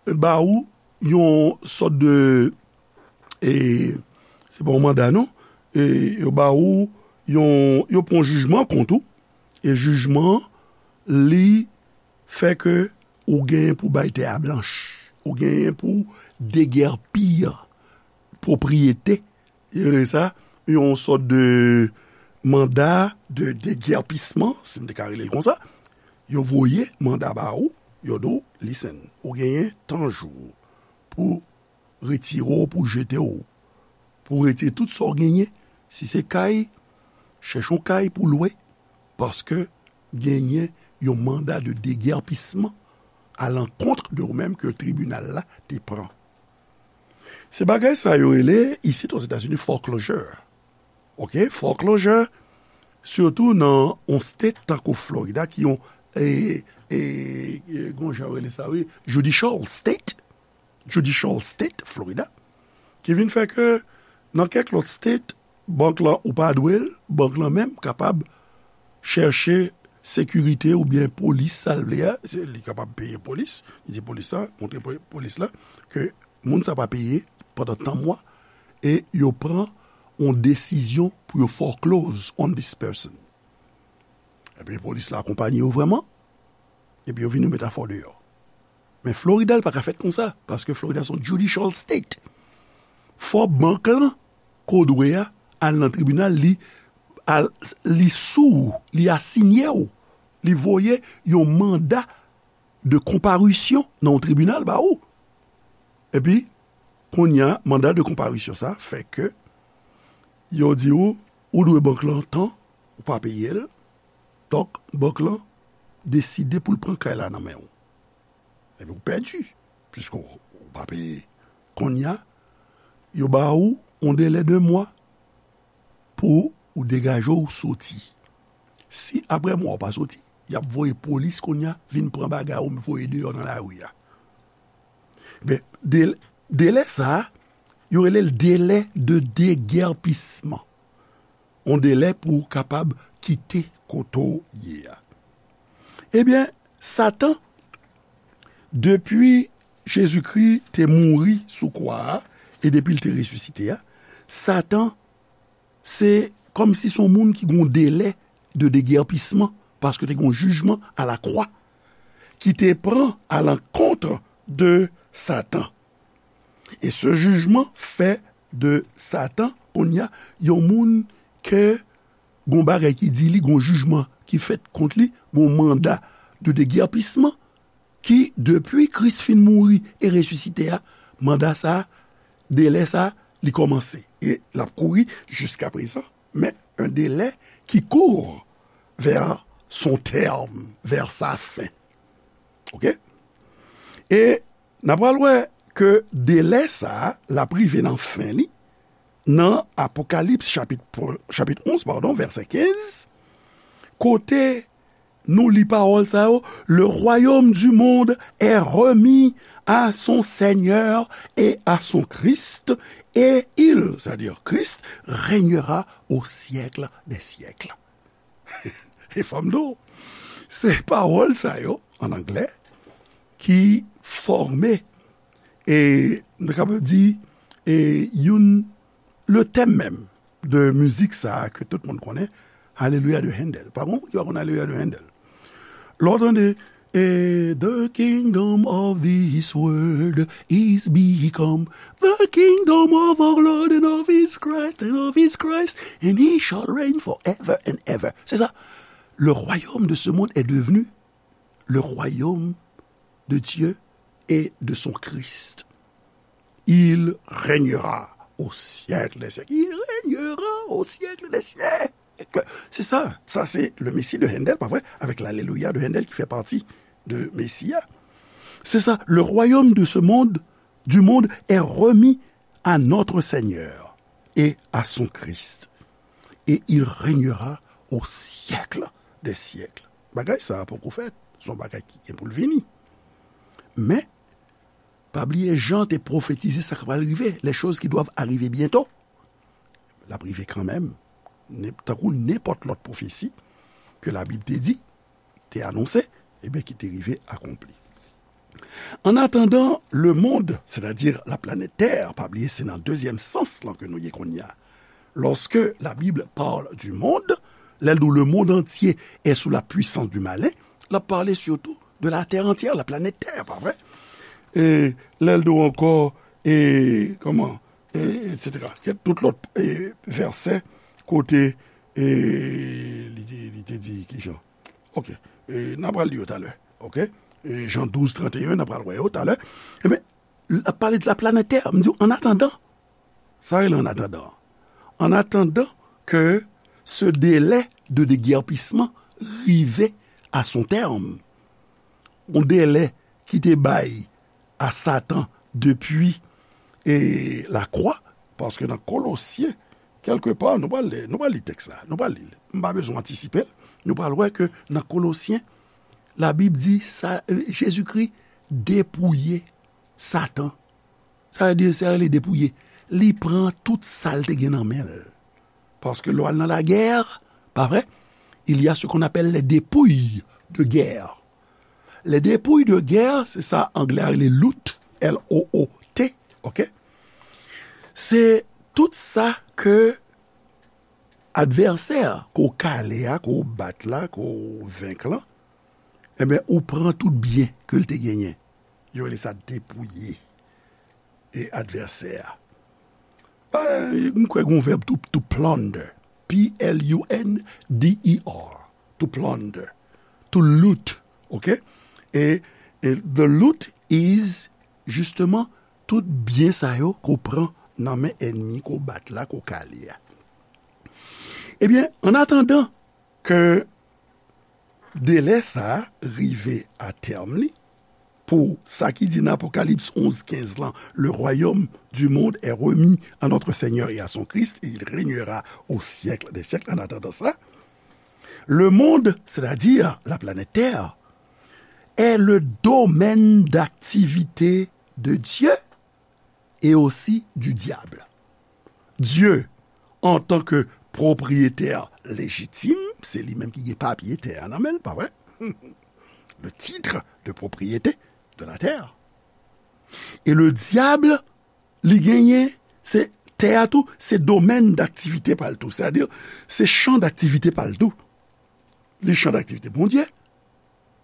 ba ou yon sòt de, e, se pa yon manda, non. E, yo ba ou yon, yo pran jijman kont ou. E jijman, li fè ke ou genyen pou bay tè a blanch. Ou genyen pou degèpi pwopriyete. Yo rele sa yon sòt de manda de degèpisman, si m te ka rele l konsa. Yo voye manda ba ou, yo di w, listen, ou genyen tan jou pou retire w, pou jete w, pou retire tout sa w genyen. Si se kay, chèche yon kay pou lwe, paske genyen yon manda de degèpisman à l'encontre de ou menm ke tribinal la te pran. Se bagay sa yo rele, isit Ozetazini, foreclosure. Ok, foreclosure, sitou nan yon state tankou Florida, ki yon, e, e, e, gon jan yo rele sa, wi, judicial state, judicial state, Florida, ki vin fè ke nan kèk lòt state, bank lan ou pa dwe l, bank lan menm kapab chèche sekirite oubyen polis, sa l vle a, se, li kapab peye polis, li di polis la, montre po-, polis la, ke moun sa pa peye pandan tan mwa, e yo pran yon desizyon pou yo foreclose on this person. Epi polis la akonpanye yo vrèman, epi yo vin yo met afè w deyò. Men Florida, l pa ka fèt konsa, paske Florida se yon judicial state. Fò bank lan, ke w dwe a, al nan tribinal, li, al, li sou ou, li asinye w, li voye yon manda de konparisyon nan yon tribinal ba ou. Epi, kounye a, manda de konparisyon sa fè ke yo di ou, ou dwe bank lan tan, ou pa peye l, donk, bank lan deside pou l pran kay la nan men w. Epi ou pèdi, piske w, ou pa peye. Kounye a, yo ba ou yon delè de mwa pou ou degaje w soti. Si apre mwa ou pa soti, y ap voye polis kounye a vin pran bagay ou voye deyò nan lari a. Ben, de-, delè sa a, yo rele l delè de degèpisman. Yon delè pou w kapab kite kote w ye a. Ebyen, Satan, depi Jezikri te mouri sou kwa a, e depi l te resisite a, Satan, se kòmsi se yon moun ki gen yon delè de degèpisman, paske te gen yon jijman a la kwa ki te pran a lankont de Satan. E se jijman fè de Satan, kounye a, yon moun ke gon bagay ki di li, gon jijman ki fèt kont li, gon manda de degèpisman ki, depi Kris fin mouri e resisite a, manda sa, delè sa, li kòmanse. E l ap kouri jiska prezan. Mais un délai qui court vers son terme, vers sa fin. Ok? E n ap pral wè ke delè sa a, l ap rive nan fen li, nan Apokalips chapit, chapit onz, padon, vèsè kenz, kote nou li pawòl sa yo, le royaume du monde est remis à son Seigneur et à son Christ, et il, c'est-à-dire Christ, régnera au siècle des siècles. E fò m di w, se pawòl sa yo, an anglè, ki fòme, e, nou kapab di, e, youn, le thème même de mizik sa a ke tout moun konnen, Alelouya de Handel. Pa gen moun ki pa konn Alelouya de Handel. Lè w tande, e, the kingdom of this world is become the kingdom of our Lord and of his Christ and of his Christ, and he shall reign forever and ever. C'est ça. Le royaume de ce monde est devenu le royaume de Dieu et de son Christ. Il régnera au siècle des siècles. Il régnera au siècle des siècles. C'est ça. Ça, c'est le Messie de Handel, pas vrai? Avec l'Alléluia de Handel qui fait partie de Messie. C'est ça. Le royaume de ce monde, du monde, est remis à notre Seigneur et à son Christ. Et il régnera au siècle des siècles. Bagay sa a poko fèt. Se yon bagay ki gen pou l vini. Men, pa bliye Jan te pwofetize sa k pral rive, les choses qui doivent arriver bientôt. L ap rive kanmenm. Tankou nenpòt lòt pwofesi ke Labib te di, te anonse, ebyen, ki te rive akonpli. En attendant, le monde, c'est-à-dire la planète Terre, pa bliye se nan dezyèm sans lan ke nou ye kounye a. Lorsque la Bible parle du monde, lè l di w le monde entier est sous la puissance du malin, l ap pale surtout de la terre entière, la planète Terre, pa vre? E lè l di w ankò, e, kòman, e, et cetera. Kèk tout lòt, e, vèsè kote, e, li, li te di kijan. Ok. E, n a pral li yo talè. Ok? E, Jan douz trant e en, n a pral wè yo talè. Ebyen, l ap pale de la planète Terre. M di w, en attendant. Sa rele en attendant. En attendant que ce délai de déguerpissement rive à son terme. Yon delè ki te bay a Satan depi, e, lakwa, paske nan Kolosyen, kèlkepa, nou pral li, nou pral li tèks la, nou pral li l. M pa bezwen antisipe l. Nou pral wè ke nan Kolosyen, Labib di sa, e, Jezikri depouye Satan. Sa vle di, sa rele depouye. Li pran tout sa l te gen nan men l. Paske lè w al nan lagè, pa vre, il y a ce qu'on appelle les dépouilles de guerre. Les dépouilles de guerre, se sa anglè a rele loot, L O O T, ok? Se tout sa ke advèsè a, ke w kale a, ke w bat la, ke w venk lan, ebyen, ou pran tout byen ke l te genyen. Yo rele sa depouye e advèsè a. Pa, m kwè gen yon vèb tou, to plunder. P L U N D E R. To plunder. To loot. Ok? E, e the loot is, justement, tout byen sa yo ke w pran nan men ènmi, ke w bat la, ke w kale a. Ebyen, an atandan ke delè sa a rive a tèm li, pou sa ki di nan Apokalips onz kenz lan, le royaume du monde est remis à notre Seigneur et à son Christ, et il régnera au siècle des siècles. En attendant ça, le monde, c'est-à-dire la planète Terre, est le domaine d'activité de Dieu et aussi du diable. Dye, antan ke pwopriyetè lejitim, se li menm ki gen papye tè a nan men l, pa vre? Le titre de propriété de la terre. E le dyab, li genyen, se tè a tou, se domèn daktivite pa l tou. Sètadi, se chan daktivite pa l tou. Li chan daktivite Bondye,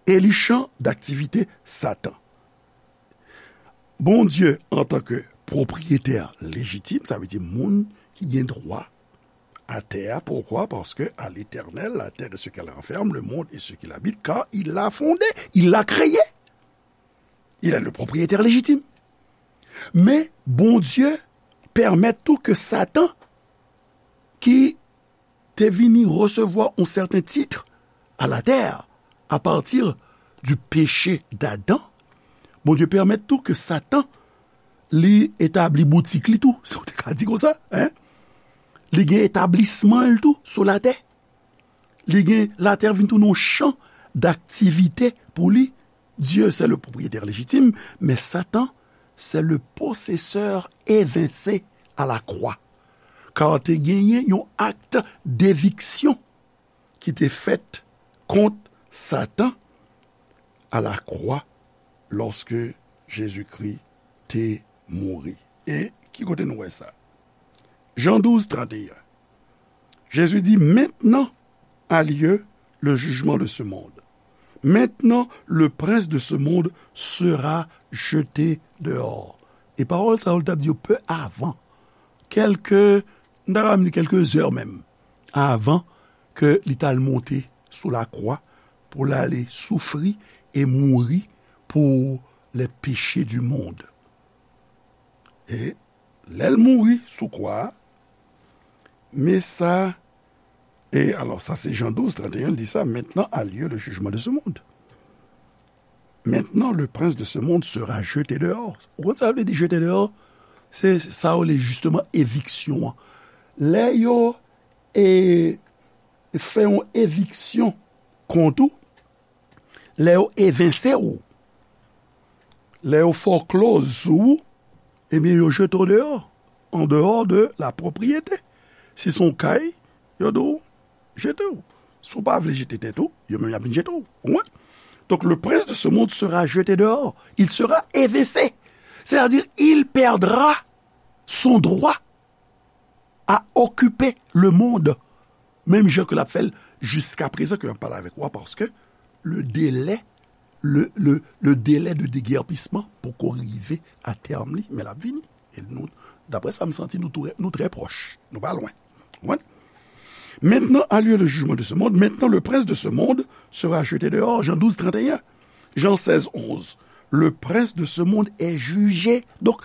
e li chan daktivite Satan. Bondye, antanke pwopriyetè lejitim, sa vle di moun ki gen dwa a tè a. Poukwa? Paske à l'Éternel, la terre et ce qu'elle renferme, le monde et ce qu'il habite, car il l'a fondé, il l'a créé. Il est le propriétaire légitime. Men Bondye pèmèt tou ke Satan, ki te vini resevwa yon sèten tit a la tè, a pati di peche d'Adan, Bondye pèmèt tou ke Satan, li etabli boutik li tou, si w te ka di konsa, en. Li gen etablisman l tou sou latè. Li gen, latè vin tounen yon chan daktivite pou li. Dieu, c'est le propriétaire légitime, mais Satan, c'est le possesseur évincé à la croix. Kar te genyen yon akt deviksyon ki te fèt kont Satan a la kwa lòske Jezikri te mouri. E ki kote nou wè sa? Jan douz, trannteyen. Jésus dit, maintenant a lieu le jugement de ce monde. Maintenant, le prince de ce monde sera jeté dehors. E pawòl sa yo, l t ap di yo pe avan. Kèlke, m ta ka di kèlke zè menm, avan ke li t al monte sou lakwa pou l ale soufri e mouri pour les péchés du monde. E lè l mouri sou kwa a, men sa, e alò, sa se Jan douz, trannteyen, l di sa, maintenant a lieu le jugement de ce monde. Maintenant, le prince de ce monde sera jeté dehors. Ou konn sa vle di jeté dehors? Se sa yo rele jisteman eviksyon an. Lè yo, e, fè yon eviksyon kont ou, lè yo evense w, lè yo foreclose sou ou, ebyen, yo jete w deyò, en dehors de la propriété. Si se yon kay, yo di w, jete w. Si w pa vle jete tèt ou, yo menm y ap vin jete w. Ou konprann? Donc, le prince de ce monde sera jeté dehors. Il sera évincé. C'est-à-dire, il perdra son droit à occuper le monde. Menm jan ke l ap fè l jiska prezan ke m ap pale avèk ou a, paske le délai, le, le, le délai de déguerpissement poko rive a tèm li, men l ap vini. E nou, daprè sa m santi, nou tou, nou trè pwòch. Nou pa lwen. Ou konprann? Maintenant a lieu le jugement de ce monde. Maintenant, le prince de ce monde sera jeté dehors. Jan douz, trannteyen. Jan sèz, onz. Le prince de ce monde est jugé. Donk,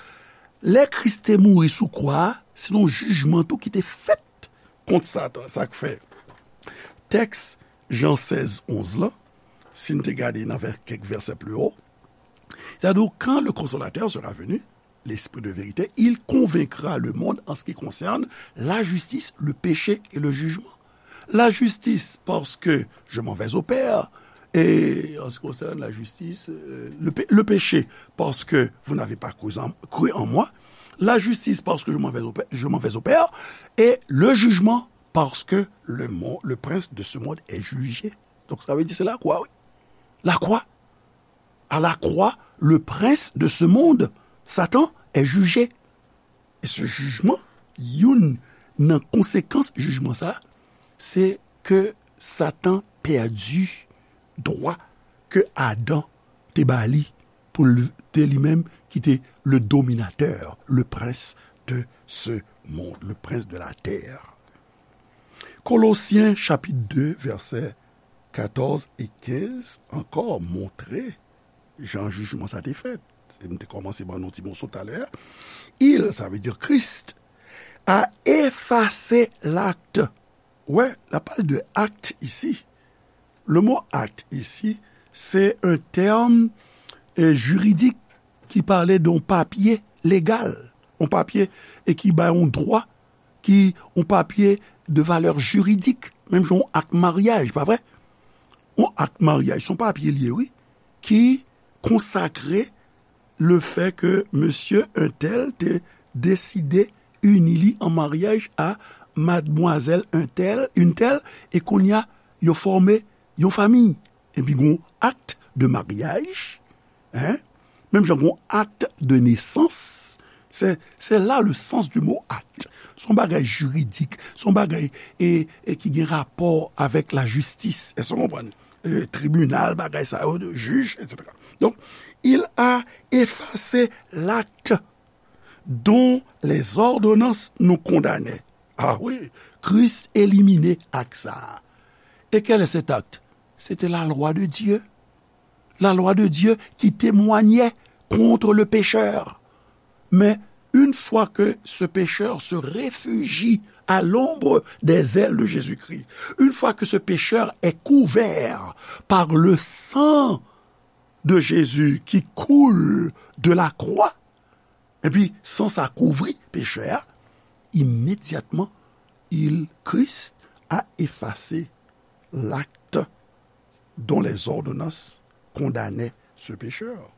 lè Kris te mouri sou kwa a, se yon jijman tou ki te fèt kont Satan. Sa k fè tèks Jan sèz, onz lan, si n te gade nan vè-, kèk vèsè pli wo, c'est-à-dire, quand le Consolateur sera venu, l'Esprit de vérité, il convaincra le monde en ce qui concerne la justice, le péché et le jugement. La justice, parce que je m'en vais au Père, et en ce qui concerne la justice, euh, le pé-, le péché, parce que vous n'avez pas cru en, cru en moi. La justice, parce que je m'en vais au Pè-, je m'en vais au Père, et le jugement, parce que le mo-, le prince de ce monde est jugé. Donk, sa vle di se lakwa, wi. Lakwa. À la croix, le prince de ce monde, Satan, est jugé. E se jijman, youn nan konsekans jijman sa a, se ke Satan pèdi dwa ke Adan te ba li pou l te li menm ki te le dominateur, le prince de ce monde, le prince de la terre. Kolosyen chapit de, vèsè katòz e kenz ankò montre jan jijman sa te fèt. E m te kòmanse ban nou ti moso talè a. Il, sa vle di Christ, a effacé l'acte. Wè, la pale de acte ici. Le mot acte ici, c'est un terme, euh, juridique qui parlait d'un papier légal, un papier et qui ba yon dwa ki yon papye de valè jiridik, menm jan yon ak maryaj, pa vre? Yon ak maryaj, se yon papye l ye, wi, ki konsakre le fè ke mesye entèl te deside ini li an maryaj a madmwazèl entèl, entèl, e kounye a, yo fòme yon fanmi. Epi gen yon acte de mariage, hein? Menm jan gen yon acte de naissance, c'est, c'est là le sens du mot acte. Se yon bagay jiridik, se yon bagay, e, e ki gen rapò avèk lajistis. Èske w konprann? E, tribinal, bagay sa yo, jij, et cetera. Donc, il a effacé l'acte dont les ordonnances nous condamnaient. Ah oui, Christ éliminé acte sa a. Et quel est cet acte? C'était la loi de Dieu. La loi de Dieu qui témoignait contre le pécheur. Men, Une fois que ce pécheur se réfugie à l'ombre des ailes de Jésus-Christ, une fois que ce pécheur est couvert par le sang de Jésus qui coule de la croix, epi san sa kouvri pechè a, imedyatman, il, Christ a effacé l'acte dont les ordonnances condamnaient ce pécheur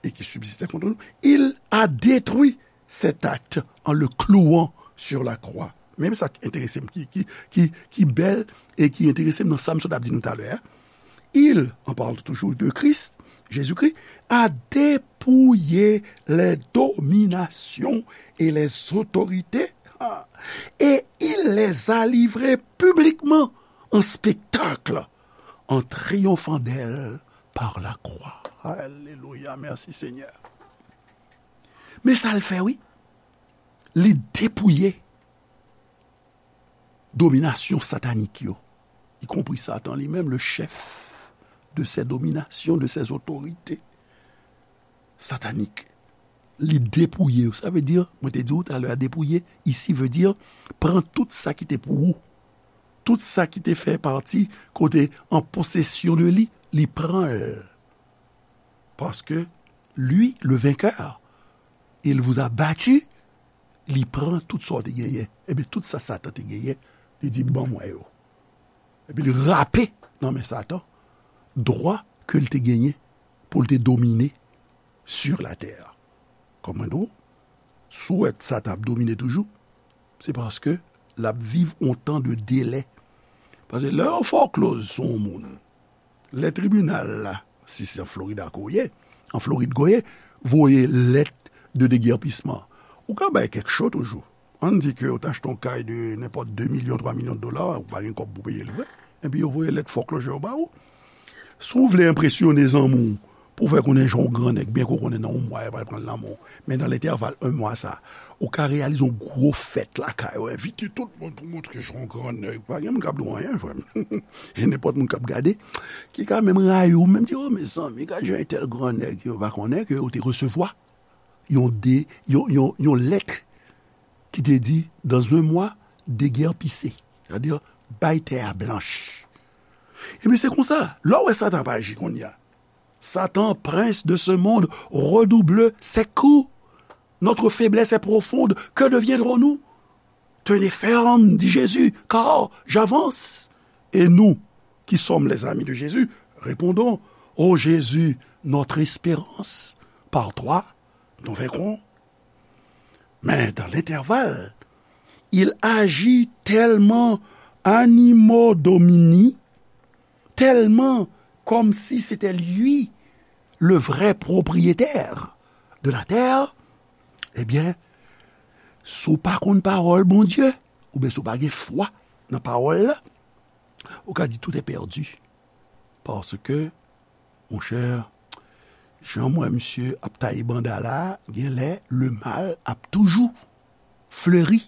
et qui subsistait contre nous. Il a détruit cet acte en le clouant sur la croix. Men sa k enterese m, ki, ki, ki, ki bèl e ki enterese m nan sa m sot ap di nou talè a. Il, en parlant toujours de Christ, Jésus-Christ, a dépouillé les dominations et les autorités, ah, et il les a livrées publiquement en spectacle, en triomphant d'elles par la croix. Alléluia, merci Seigneur. Men sa l fè, wi. Li depouye dominasyon satanik yo, y compris Satan li menm, le chef de ces dominations, de ces autorités sataniques. Li depouye yo. Sa vle di, mwen te di w talè a, depouye, isi, vle di, pran tout sa ki te pou ou. Tout sa ki te fè pati, kote an posesyon de li, li pran l. Paske, lui, le vainqueur, il vous a battu, li pran tout sa w te genyen. Ebyen, tout sa Satan te genyen, li di, "Ban mwen yo." Epi li rape nan men Satan dwa ke l te genyen pou l te domine sur la terre. Kòm mwen di w, si w wè Satan ap domine toujou, se paske l ap viv yon tan de delè. Paske lè yo fè w kloz sou yon moun, lè tribinal la, si se an Florida ke w ye, an Florid ke w ye, voye lèt de degèpisman, ou ka bay kèk cho toujou. Ann di ke w t achte yon kay de nenpòt de milyon, twa milyon dola, ou pa gen kòb pou peye l vre. Epi yo voye lèt foreclosure ba ou. Si w vle enpresyone zanmi w, pou w fè konnen jan w grannèg, byen ke w konnen nan yon mwa, yo pral pran l nan men w. Men nan lentèval yon mwa sa, ou ka reyalize yon gwo fèt lakay ou, envite tout moun pou montre jan w grannèg. Pa gen moun k ap di w anyen, frè m. E nenpòt moun k ap gade, ki ka menm rayi w, menm di, "O, mezanmi, gad jan entèl grannèg." Yo pa konnen ke w te resevwa yon de, yon, yon, yon lèt ki te di, "Dans un mois, déguerpissez." Sa vle di, bay tè a blanch. Ebyen, se konsa, lè w wè Satan ap aji kounye a. Satan, prince de ce monde, redouble ses coups. Notre faiblesse est profonde. Que deviendrons-nous? Tenez ferme, dit Jésus, car j'avance. Et nous, qui sommes les amis de Jésus, répondons, Ô Jésus, notre espérance, par toi, nous vaincrons. Mais dans l'intervalle, il agit tellement animo domini, tellement comme si c'était lui le vrai propriétaire de la terre, ebyen, si w pa konn pawòl Bondye, oubyen si w pa gen fwa nan pawòl la, ou ka di tout est perdu. Paske, monchè, jan m wè misye ap taye banda la, genlè le mal ap toujou fleri.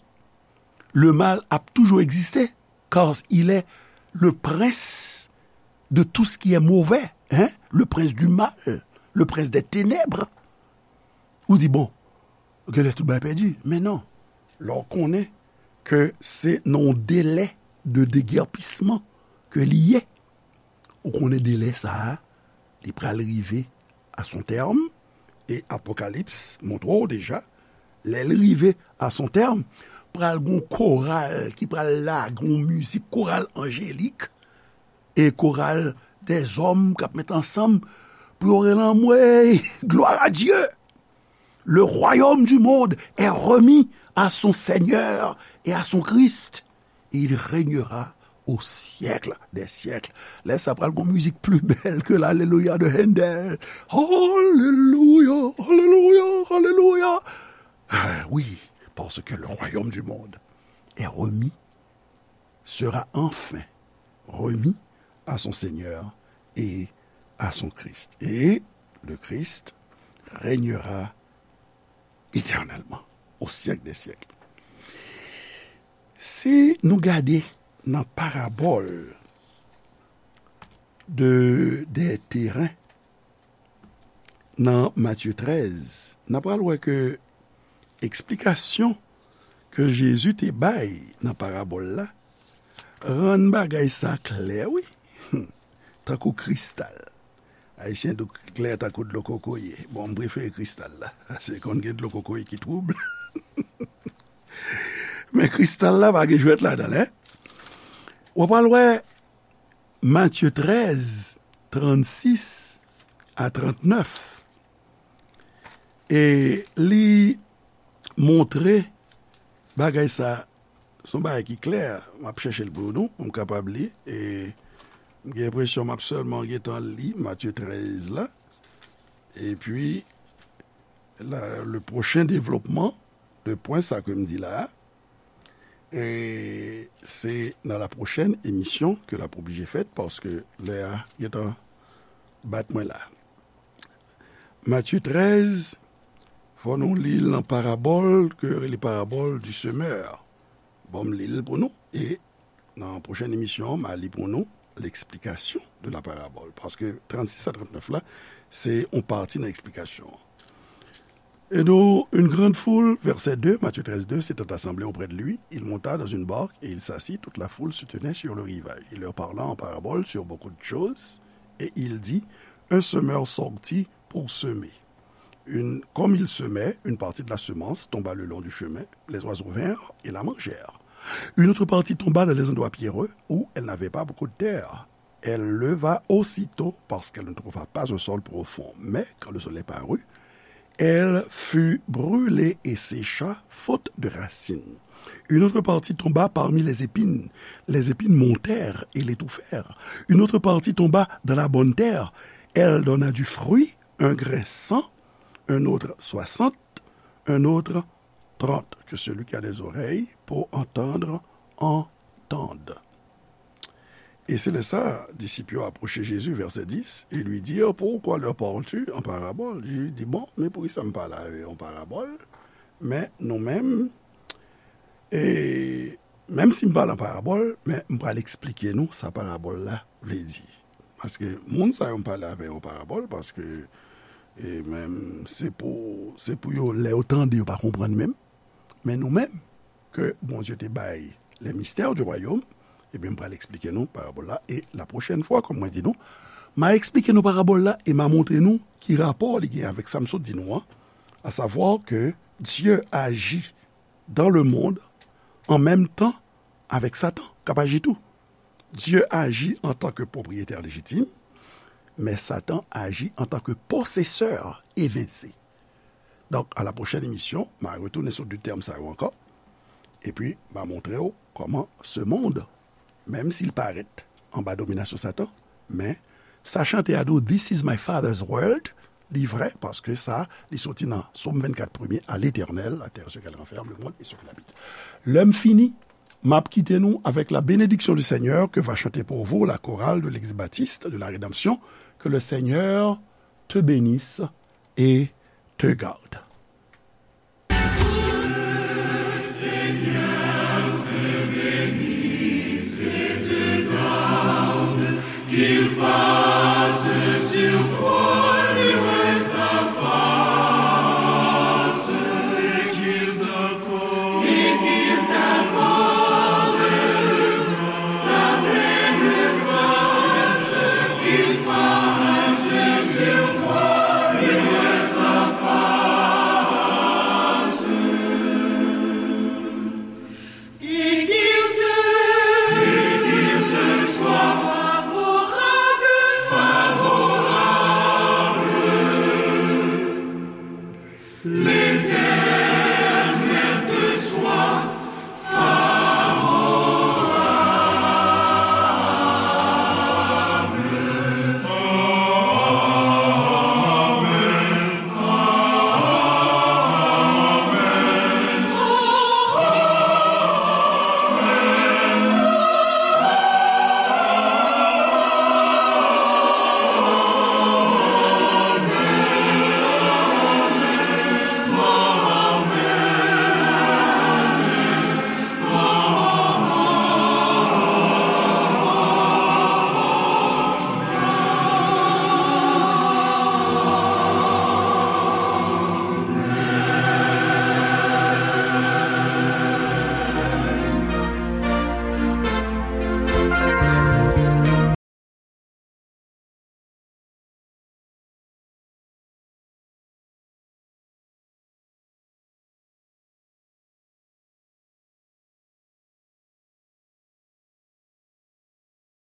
Le mal ap toujou egziste, car il est le prince de tout ce qui est mauvais, hein? Le prince du mal, le prince des ténèbres. Ou di, bon, genlè tout bagay pèdi. Men non. Lè w konnen ke se nan yon delè de degèpisman ke li ye, ou konnen delè sa a, li pral rive a son tèm, e Apokalips montre w deja, lè l rive a son tèm, pral gon koral ki pral lage yon mizik, koral anjelik, e koral dèzòm k ap met ansanm pou yo rele anmwey, gloire à Dieu! Le royaume du monde est remis à son Seigneur et à son Christ. Et il régnera au siècle des siècles. Lè sa pral gon mizik pli bèl ke l'Alléluia de Handel. Alléluia, alléluia, alléluia. Ah, oui, parce que le royaume du monde est remis, sera enfin remis à son Seigneur et à son Christ. Et le Christ régnera éternellement, au siècle des siècles. Si nou gade nan parabòl de, de teren nan Matye trèz, n a pral wè ke eksplikasyon ke Jezi te bay nan parabòl la rann bagay sa klè, wi, tankou kristal. Ayisyen di w klè tankou dlo kokoye. Bon, m prefere kristal la. Se konn gen dlo kokoye ki twoub. Men kristal la pa gen jwèt ladan l, en. W ap al wè Matye trèz, trannsis a trannèf. E li montre bagay sa, se yon bagay ki klè. M ap chèche l pou nou, pou m kapab li. E m gen enpresyon m ap sèlman gentan li Matye trèz la. Epi, la, le pwochen devlopman de pwen sa ke m di la a, e se nan la pwochèn emisyon ke l ap oblije fèt, paske lè a gentan bat mwen la. Matye trèz, fò nou li l nan parabòl ke yo rele parabòl du semeur. Bon, m li l pou nou, e nan pwochèn emisyon, m a li pou nou l'explication de la parabole. Paske trannsis a trannèf la, se yon pati nan eksplikasyon an. Et donc, une grande foule, verset deux, Matthieu treize deux, s'étant assemblée auprès de lui, il monta dans une barque et il s'assit. Toute la foule se tenait sur le rivage. Il leur parla en parabole sur beaucoup de choses, et il dit, un semeur sortit pour semer. Une, comme il semait, une partie de la semence tomba le long du chemin, les oiseaux vinrent et la mangèrent. Une autre partie tomba dans les endroits pierreux où elle n'avait pas beaucoup de terre. Elle leva aussitôt, parce qu'elle ne trouva pas un sol profond. Mais quand le soleil parut, elle fut brûlée et sécha, faute de racines. Une autre partie tomba parmi les épines. Les épines montèrent et l'étouffèrent. Une autre partie tomba dans la bonne terre. Elle donna du fruit, un grain cent, un autre soixante, un autre trente. Que celui qui a des oreilles pour entendre entende. Et c'est là ça, disciples approchaient Jésus, verset dix, et lui dirent, pourquoi leur parles-tu en parabole? Jésus dit, bon, men poukisa m pale avè yo an parabòl? Men nou menm, e menm si m pale an parabòl, men m pral eksplike nou sa parabòl la vle di. Paske moun sa yo m pale avè yo an parabòl, paske e menm se pou, se pou yo, lè yo tande, yo pa konprann menm. Men nou menm, ke Bondye te bay les mystères du royaume, ebyen, m pral eksplike nou parabòl la. E la pwochèn fwa, kòm mwen di nou, m a eksplike nou parabòl la e m a montre nou ki rapò li gen avèk sa m sot di nou an, à savoir que Dieu agit dans le monde en même temps avec Satan, k ap aji tou. Dieu agit en tant que propriétaire légitime, mais Satan agit en tant que possesseur évincé. Donk, à la prochaine émission, m a retounen sou de tèm sa yo ankò. Epi, m a montre w kòman ce monde, menm si l parèt anba dominasyon Satan, men sa chante a di w, this is my father's world, li vrè, paske sa, li soti nan Sòm vennkat premye, à l'Éternel, la terre, ce qu'elle renferme, le monde et ceux qui l'habitent. Lè m fini, m ap kite nou avec la bénédiction du Seigneur que va chanter pour vous la chorale de l'église baptiste de la Rédemption. Que le Seigneur te bénisse et te garde.